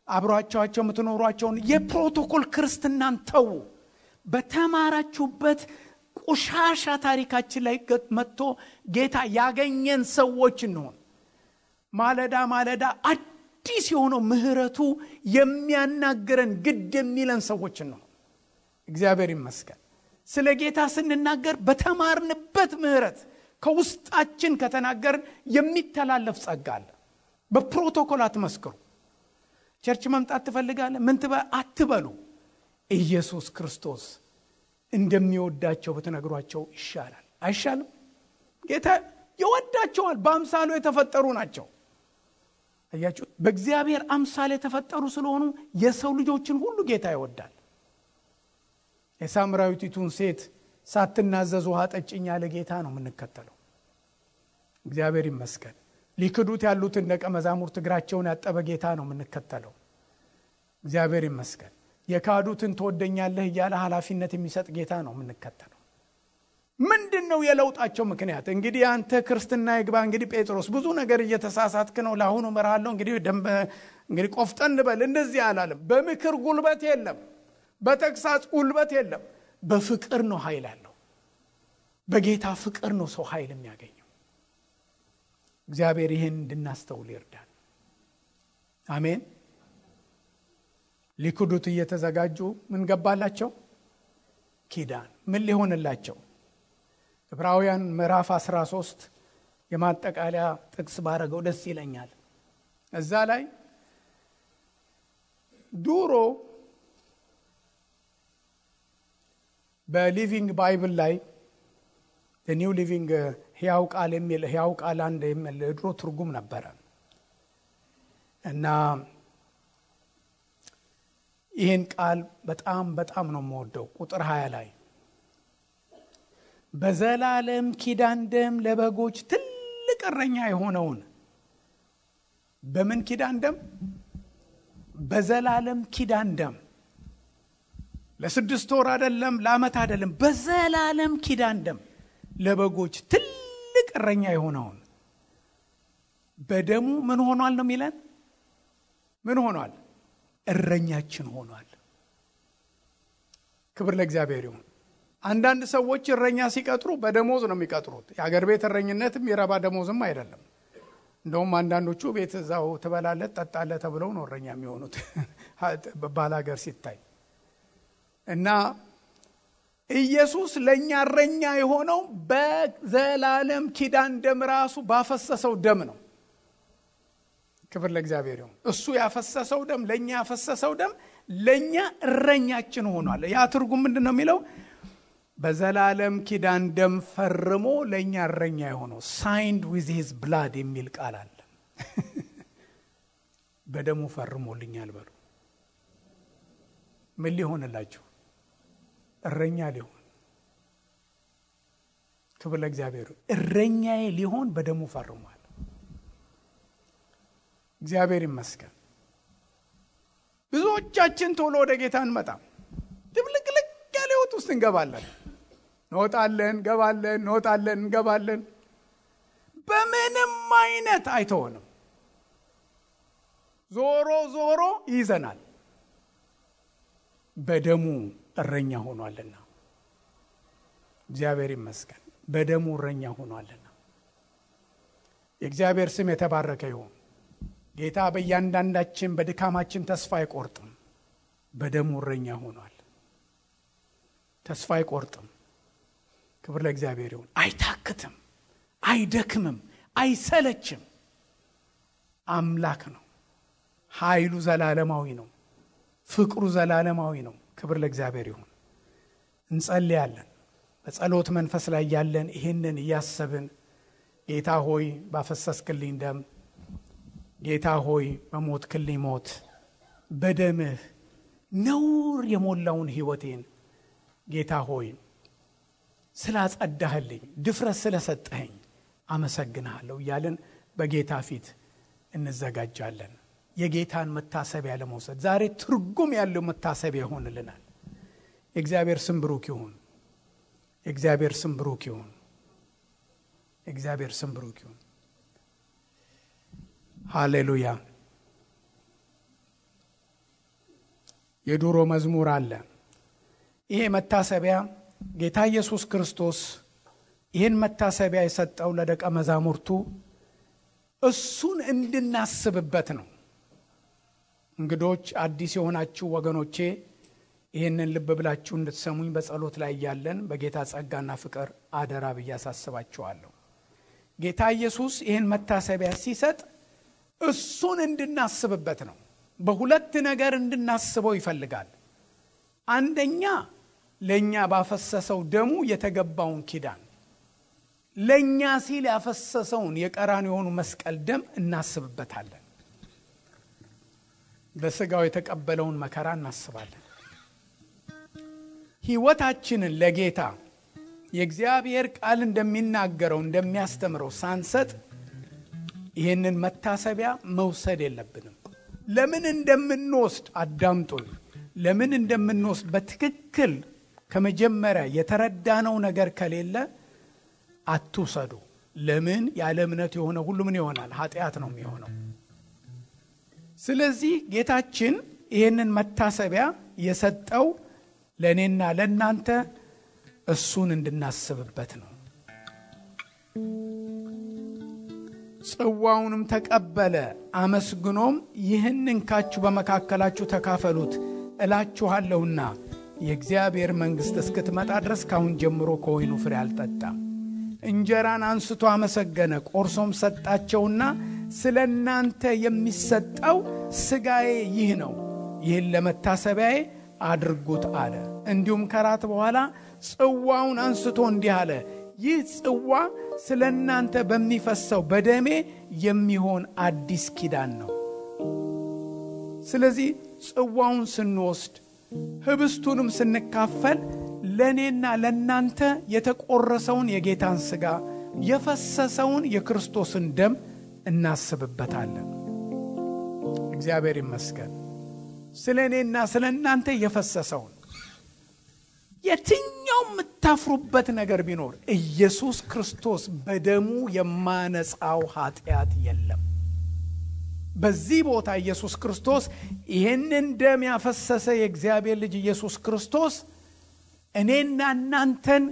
አብራችኋቸው የምትኖሯቸውን የፕሮቶኮል ክርስትናን ተው። በተማራችሁበት ቆሻሻ ታሪካችን ላይ መጥቶ ጌታ ያገኘን ሰዎች እንሆን። ማለዳ ማለዳ አዲስ የሆነው ምህረቱ የሚያናገረን ግድ የሚለን ሰዎች እንሆን። እግዚአብሔር ይመስገን። ስለ ጌታ ስንናገር በተማርንበት ምህረት ከውስጣችን ከተናገርን የሚተላለፍ ጸጋ አለ። በፕሮቶኮል አትመስክሩ። ቸርች መምጣት ትፈልጋለህ ምን አትበሉ። ኢየሱስ ክርስቶስ እንደሚወዳቸው በተነግሯቸው ይሻላል። አይሻልም? ጌታ ይወዳቸዋል። በአምሳሉ የተፈጠሩ ናቸው። አያችሁ፣ በእግዚአብሔር አምሳል የተፈጠሩ ስለሆኑ የሰው ልጆችን ሁሉ ጌታ ይወዳል። የሳምራዊቲቱን ሴት ሳትናዘዝ ውሃ ጠጭኝ ያለ ጌታ ነው የምንከተለው። እግዚአብሔር ይመስገን። ሊክዱት ያሉትን ደቀ መዛሙርት እግራቸውን ያጠበ ጌታ ነው የምንከተለው። እግዚአብሔር ይመስገን። የካዱትን ትወደኛለህ እያለ ኃላፊነት የሚሰጥ ጌታ ነው የምንከተለው። ምንድነው የለውጣቸው ምክንያት? እንግዲህ አንተ ክርስትና ይግባ። እንግዲህ ጴጥሮስ ብዙ ነገር እየተሳሳትክ ነው፣ ለአሁኑ መራለሁ፣ እንግዲህ ቆፍጠን በል እንደዚህ አላለም። በምክር ጉልበት የለም፣ በተግሳጽ ጉልበት የለም። በፍቅር ነው ኃይል ያለው። በጌታ ፍቅር ነው ሰው ኃይል የሚያገኘው። እግዚአብሔር ይህን እንድናስተውል ይርዳል። አሜን። ሊክዱት እየተዘጋጁ ምን ገባላቸው? ኪዳን። ምን ሊሆንላቸው? ዕብራውያን ምዕራፍ 13 የማጠቃለያ ጥቅስ ባረገው ደስ ይለኛል። እዛ ላይ ዱሮ በሊቪንግ ባይብል ላይ ኒው ሊቪንግ ሕያው ቃል የሚል ሕያው ቃል አንድ የሚል ድሮ ትርጉም ነበረ እና ይህን ቃል በጣም ነው የምወደው። ቁጥር 20 ላይ በዘላለም ኪዳን ደም ለበጎች ትልቅ እረኛ የሆነውን በምን ኪዳን ደም? በዘላለም ኪዳን ደም። ለ6 ወር አይደለም፣ ለዓመት አይደለም፣ በዘላለም ኪዳን ደም ለበጎች ትልቅ እረኛ የሆነውን በደሙ ምን ሆኗል ነው የሚለን? ምን ሆኗል? እረኛችን ሆኗል። ክብር ለእግዚአብሔር ይሁን። አንዳንድ ሰዎች እረኛ ሲቀጥሩ በደሞዝ ነው የሚቀጥሩት። የሀገር ቤት እረኝነትም የረባ ደሞዝም አይደለም። እንደውም አንዳንዶቹ ቤት እዛው ትበላለህ ጠጣለህ ተብለው ነው እረኛ የሚሆኑት ባላገር ሲታይ። እና ኢየሱስ ለኛ እረኛ የሆነው በዘላለም ኪዳን ደም ራሱ ባፈሰሰው ደም ነው። ክብር ለእግዚአብሔር ይሁን። እሱ ያፈሰሰው ደም ለኛ ያፈሰሰው ደም ለኛ እረኛችን ሆኗል። ያ ትርጉም ምንድነው የሚለው? በዘላለም ኪዳን ደም ፈርሞ ለኛ እረኛ የሆነው signed with his blood የሚል ቃል አለ። በደሙ ፈርሞልኛል በሉ። ምን ሊሆንላችሁ? እረኛ ሊሆን። ክብር ለእግዚአብሔር። እረኛዬ ሊሆን በደሙ ፈርሟል። እግዚአብሔር ይመስገን። ብዙዎቻችን ቶሎ ወደ ጌታ እንመጣም። ድብልቅልቅ ያለ ህይወት ውስጥ እንገባለን። እንወጣለን፣ እንገባለን፣ እንወጣለን፣ እንገባለን። በምንም አይነት አይተውንም። ዞሮ ዞሮ ይዘናል። በደሙ እረኛ ሆኗልና እግዚአብሔር ይመስገን። በደሙ እረኛ ሆኗልና የእግዚአብሔር ስም የተባረከ ይሁን። ጌታ በእያንዳንዳችን በድካማችን ተስፋ አይቆርጥም። በደሙ እረኛ ሆኗል። ተስፋ አይቆርጥም። ክብር ለእግዚአብሔር ይሁን። አይታክትም፣ አይደክምም፣ አይሰለችም። አምላክ ነው። ኃይሉ ዘላለማዊ ነው። ፍቅሩ ዘላለማዊ ነው። ክብር ለእግዚአብሔር ይሁን። እንጸልያለን። በጸሎት መንፈስ ላይ ያለን ይህንን እያሰብን ጌታ ሆይ ባፈሰስክልኝ ደም፣ ጌታ ሆይ በሞትክልኝ ሞት፣ በደምህ ነውር የሞላውን ሕይወቴን ጌታ ሆይ ስላጸዳህልኝ፣ ድፍረት ስለሰጠኸኝ አመሰግንሃለሁ እያልን በጌታ ፊት እንዘጋጃለን። የጌታን መታሰቢያ ለመውሰድ ዛሬ ትርጉም ያለው መታሰቢያ ይሆንልናል። የእግዚአብሔር ስም ብሩክ ይሁን። የእግዚአብሔር ስም ብሩክ ይሁን። የእግዚአብሔር ስም ብሩክ ይሁን። ሃሌሉያ። የድሮ መዝሙር አለ። ይሄ መታሰቢያ ጌታ ኢየሱስ ክርስቶስ ይህን መታሰቢያ የሰጠው ለደቀ መዛሙርቱ እሱን እንድናስብበት ነው። እንግዶች አዲስ የሆናችሁ ወገኖቼ ይህንን ልብ ብላችሁ እንድትሰሙኝ በጸሎት ላይ ያለን በጌታ ጸጋና ፍቅር አደራ ብዬ አሳስባችኋለሁ። ጌታ ኢየሱስ ይህን መታሰቢያ ሲሰጥ እሱን እንድናስብበት ነው። በሁለት ነገር እንድናስበው ይፈልጋል። አንደኛ ለኛ ባፈሰሰው ደሙ የተገባውን ኪዳን፣ ለኛ ሲል ያፈሰሰውን የቀራንዮውን መስቀል ደም እናስብበታለን። በስጋው የተቀበለውን መከራ እናስባለን። ሕይወታችንን ለጌታ የእግዚአብሔር ቃል እንደሚናገረው እንደሚያስተምረው ሳንሰጥ ይህንን መታሰቢያ መውሰድ የለብንም። ለምን እንደምንወስድ አዳምጡኝ። ለምን እንደምንወስድ በትክክል ከመጀመሪያ የተረዳነው ነገር ከሌለ አትውሰዱ። ለምን? ያለ እምነት የሆነ ሁሉ ምን ይሆናል? ኃጢአት ነው የሚሆነው። ስለዚህ ጌታችን ይህንን መታሰቢያ የሰጠው ለእኔና ለእናንተ እሱን እንድናስብበት ነው። ጽዋውንም ተቀበለ፣ አመስግኖም ይህን እንካችሁ በመካከላችሁ ተካፈሉት እላችኋለሁና የእግዚአብሔር መንግሥት እስክትመጣ ድረስ ካሁን ጀምሮ ከወይኑ ፍሬ አልጠጣም። እንጀራን አንስቶ አመሰገነ፣ ቆርሶም ሰጣቸውና ስለ እናንተ የሚሰጠው ሥጋዬ ይህ ነው፣ ይህን ለመታሰቢያዬ አድርጉት አለ። እንዲሁም ከራት በኋላ ጽዋውን አንስቶ እንዲህ አለ፣ ይህ ጽዋ ስለ እናንተ በሚፈሰው በደሜ የሚሆን አዲስ ኪዳን ነው። ስለዚህ ጽዋውን ስንወስድ ህብስቱንም ስንካፈል ለእኔና ለእናንተ የተቆረሰውን የጌታን ሥጋ የፈሰሰውን የክርስቶስን ደም እናስብበታለን። እግዚአብሔር ይመስገን። ስለ እኔና ስለ እናንተ የፈሰሰውን የትኛው የምታፍሩበት ነገር ቢኖር ኢየሱስ ክርስቶስ በደሙ የማነጻው ኃጢአት የለም። በዚህ ቦታ ኢየሱስ ክርስቶስ ይህንን ደም ያፈሰሰ የእግዚአብሔር ልጅ ኢየሱስ ክርስቶስ እኔና እናንተን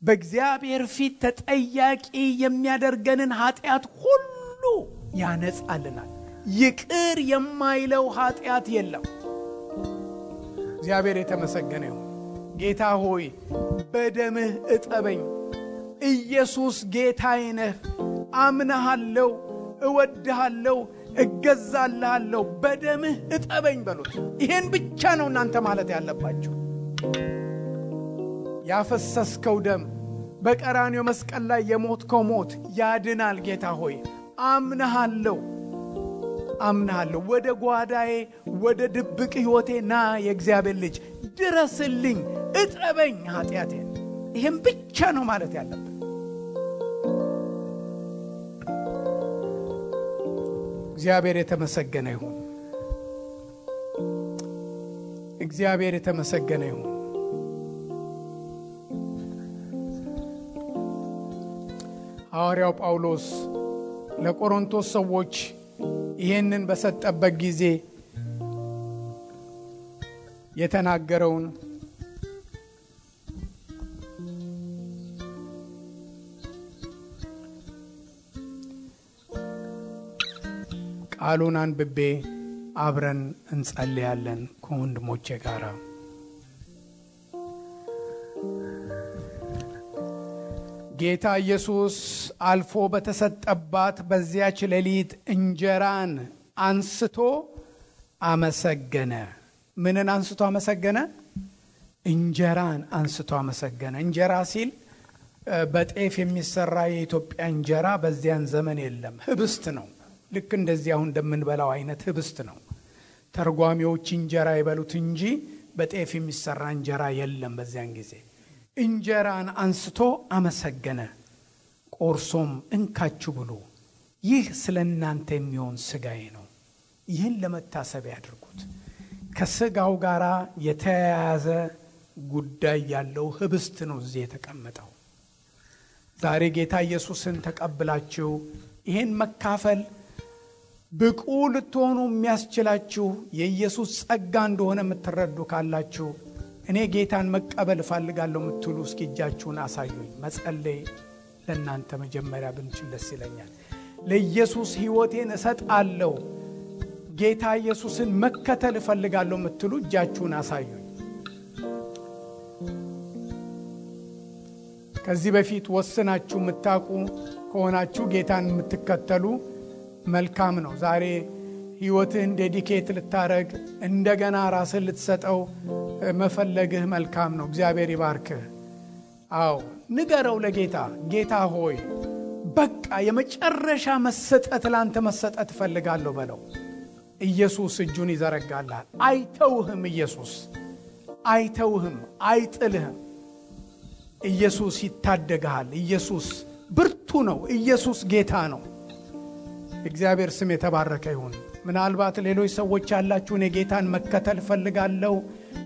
በእግዚአብሔር ፊት ተጠያቂ የሚያደርገንን ኃጢአት ሁሉ ያነጻልናል። ይቅር የማይለው ኃጢአት የለም። እግዚአብሔር የተመሰገነ ይሁን። ጌታ ሆይ በደምህ እጠበኝ። ኢየሱስ ጌታዬ ነህ። አምናሃለሁ፣ እወድሃለሁ፣ እገዛልሃለሁ። በደምህ እጠበኝ በሉት። ይሄን ብቻ ነው እናንተ ማለት ያለባችሁ። ያፈሰስከው ደም በቀራንዮ መስቀል ላይ የሞትከው ሞት ያድናል። ጌታ ሆይ አምናሃለሁ፣ አምናሃለሁ። ወደ ጓዳዬ ወደ ድብቅ ሕይወቴ ና። የእግዚአብሔር ልጅ ድረስልኝ፣ እጠበኝ ኃጢአቴን። ይሄን ብቻ ነው ማለት ያለብን። እግዚአብሔር የተመሰገነ ይሁን። እግዚአብሔር የተመሰገነ ይሁን። ሐዋርያው ጳውሎስ ለቆሮንቶስ ሰዎች ይህንን በሰጠበት ጊዜ የተናገረውን ቃሉን አንብቤ አብረን እንጸልያለን ከወንድሞቼ ጋር። ጌታ ኢየሱስ አልፎ በተሰጠባት በዚያች ሌሊት እንጀራን አንስቶ አመሰገነ። ምንን አንስቶ አመሰገነ? እንጀራን አንስቶ አመሰገነ። እንጀራ ሲል በጤፍ የሚሰራ የኢትዮጵያ እንጀራ በዚያን ዘመን የለም፣ ህብስት ነው። ልክ እንደዚህ አሁን እንደምንበላው አይነት ህብስት ነው። ተርጓሚዎች እንጀራ ይበሉት እንጂ በጤፍ የሚሰራ እንጀራ የለም በዚያን ጊዜ። እንጀራን አንስቶ አመሰገነ፣ ቆርሶም እንካችሁ ብሉ፣ ይህ ስለናንተ የሚሆን ስጋዬ ነው፣ ይህን ለመታሰቢያ ያድርጉት። ከስጋው ጋር የተያያዘ ጉዳይ ያለው ህብስት ነው እዚህ የተቀመጠው። ዛሬ ጌታ ኢየሱስን ተቀብላችሁ ይህን መካፈል ብቁ ልትሆኑ የሚያስችላችሁ የኢየሱስ ጸጋ እንደሆነ የምትረዱ ካላችሁ እኔ ጌታን መቀበል እፈልጋለሁ የምትሉ እስኪ እጃችሁን አሳዩኝ። መጸለይ ለእናንተ መጀመሪያ ብንችል ደስ ይለኛል። ለኢየሱስ ሕይወቴን እሰጣለሁ፣ ጌታ ኢየሱስን መከተል እፈልጋለሁ የምትሉ እጃችሁን አሳዩኝ። ከዚህ በፊት ወስናችሁ የምታውቁ ከሆናችሁ ጌታን የምትከተሉ መልካም ነው። ዛሬ ሕይወትህን ዴዲኬት ልታረግ እንደገና ራስን ልትሰጠው መፈለግህ መልካም ነው። እግዚአብሔር ይባርክህ። አዎ ንገረው ለጌታ፣ ጌታ ሆይ በቃ የመጨረሻ መሰጠት ላንተ መሰጠት እፈልጋለሁ በለው። ኢየሱስ እጁን ይዘረጋልሃል። አይተውህም። ኢየሱስ አይተውህም፣ አይጥልህም። ኢየሱስ ይታደግሃል። ኢየሱስ ብርቱ ነው። ኢየሱስ ጌታ ነው። እግዚአብሔር ስም የተባረከ ይሁን። ምናልባት ሌሎች ሰዎች ያላችሁ እኔ ጌታን መከተል እፈልጋለሁ፣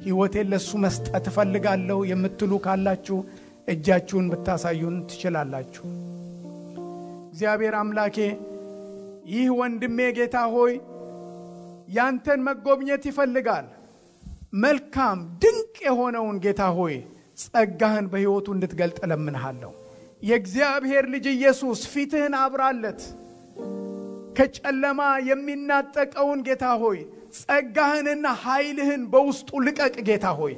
ሕይወቴን ለሱ መስጠት እፈልጋለሁ የምትሉ ካላችሁ እጃችሁን ብታሳዩን ትችላላችሁ። እግዚአብሔር አምላኬ ይህ ወንድሜ ጌታ ሆይ ያንተን መጎብኘት ይፈልጋል። መልካም ድንቅ የሆነውን ጌታ ሆይ ጸጋህን በሕይወቱ እንድትገልጥ ለምንሃለሁ። የእግዚአብሔር ልጅ ኢየሱስ ፊትህን አብራለት። ከጨለማ የሚናጠቀውን ጌታ ሆይ ጸጋህንና ኃይልህን በውስጡ ልቀቅ ጌታ ሆይ።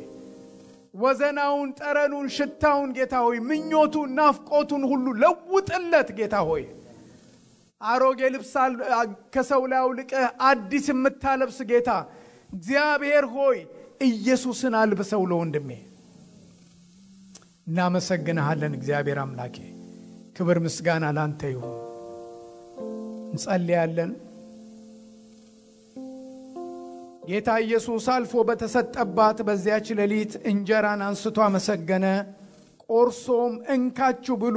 ወዘናውን፣ ጠረኑን፣ ሽታውን ጌታ ሆይ ምኞቱን፣ ናፍቆቱን ሁሉ ለውጥለት ጌታ ሆይ። አሮጌ ልብስ ከሰው ላይ አውልቀህ አዲስ የምታለብስ ጌታ እግዚአብሔር ሆይ ኢየሱስን አልብሰው ለወንድሜ። እናመሰግንሃለን እግዚአብሔር አምላኬ። ክብር ምስጋና ላንተ ይሁን። እንጸልያለን። ጌታ ኢየሱስ አልፎ በተሰጠባት በዚያች ሌሊት እንጀራን አንስቶ አመሰገነ፣ ቆርሶም እንካችሁ ብሉ፣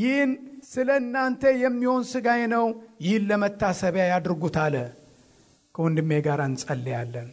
ይህን ስለ እናንተ የሚሆን ሥጋዬ ነው፣ ይህን ለመታሰቢያ ያድርጉት አለ። ከወንድሜ ጋር እንጸልያለን።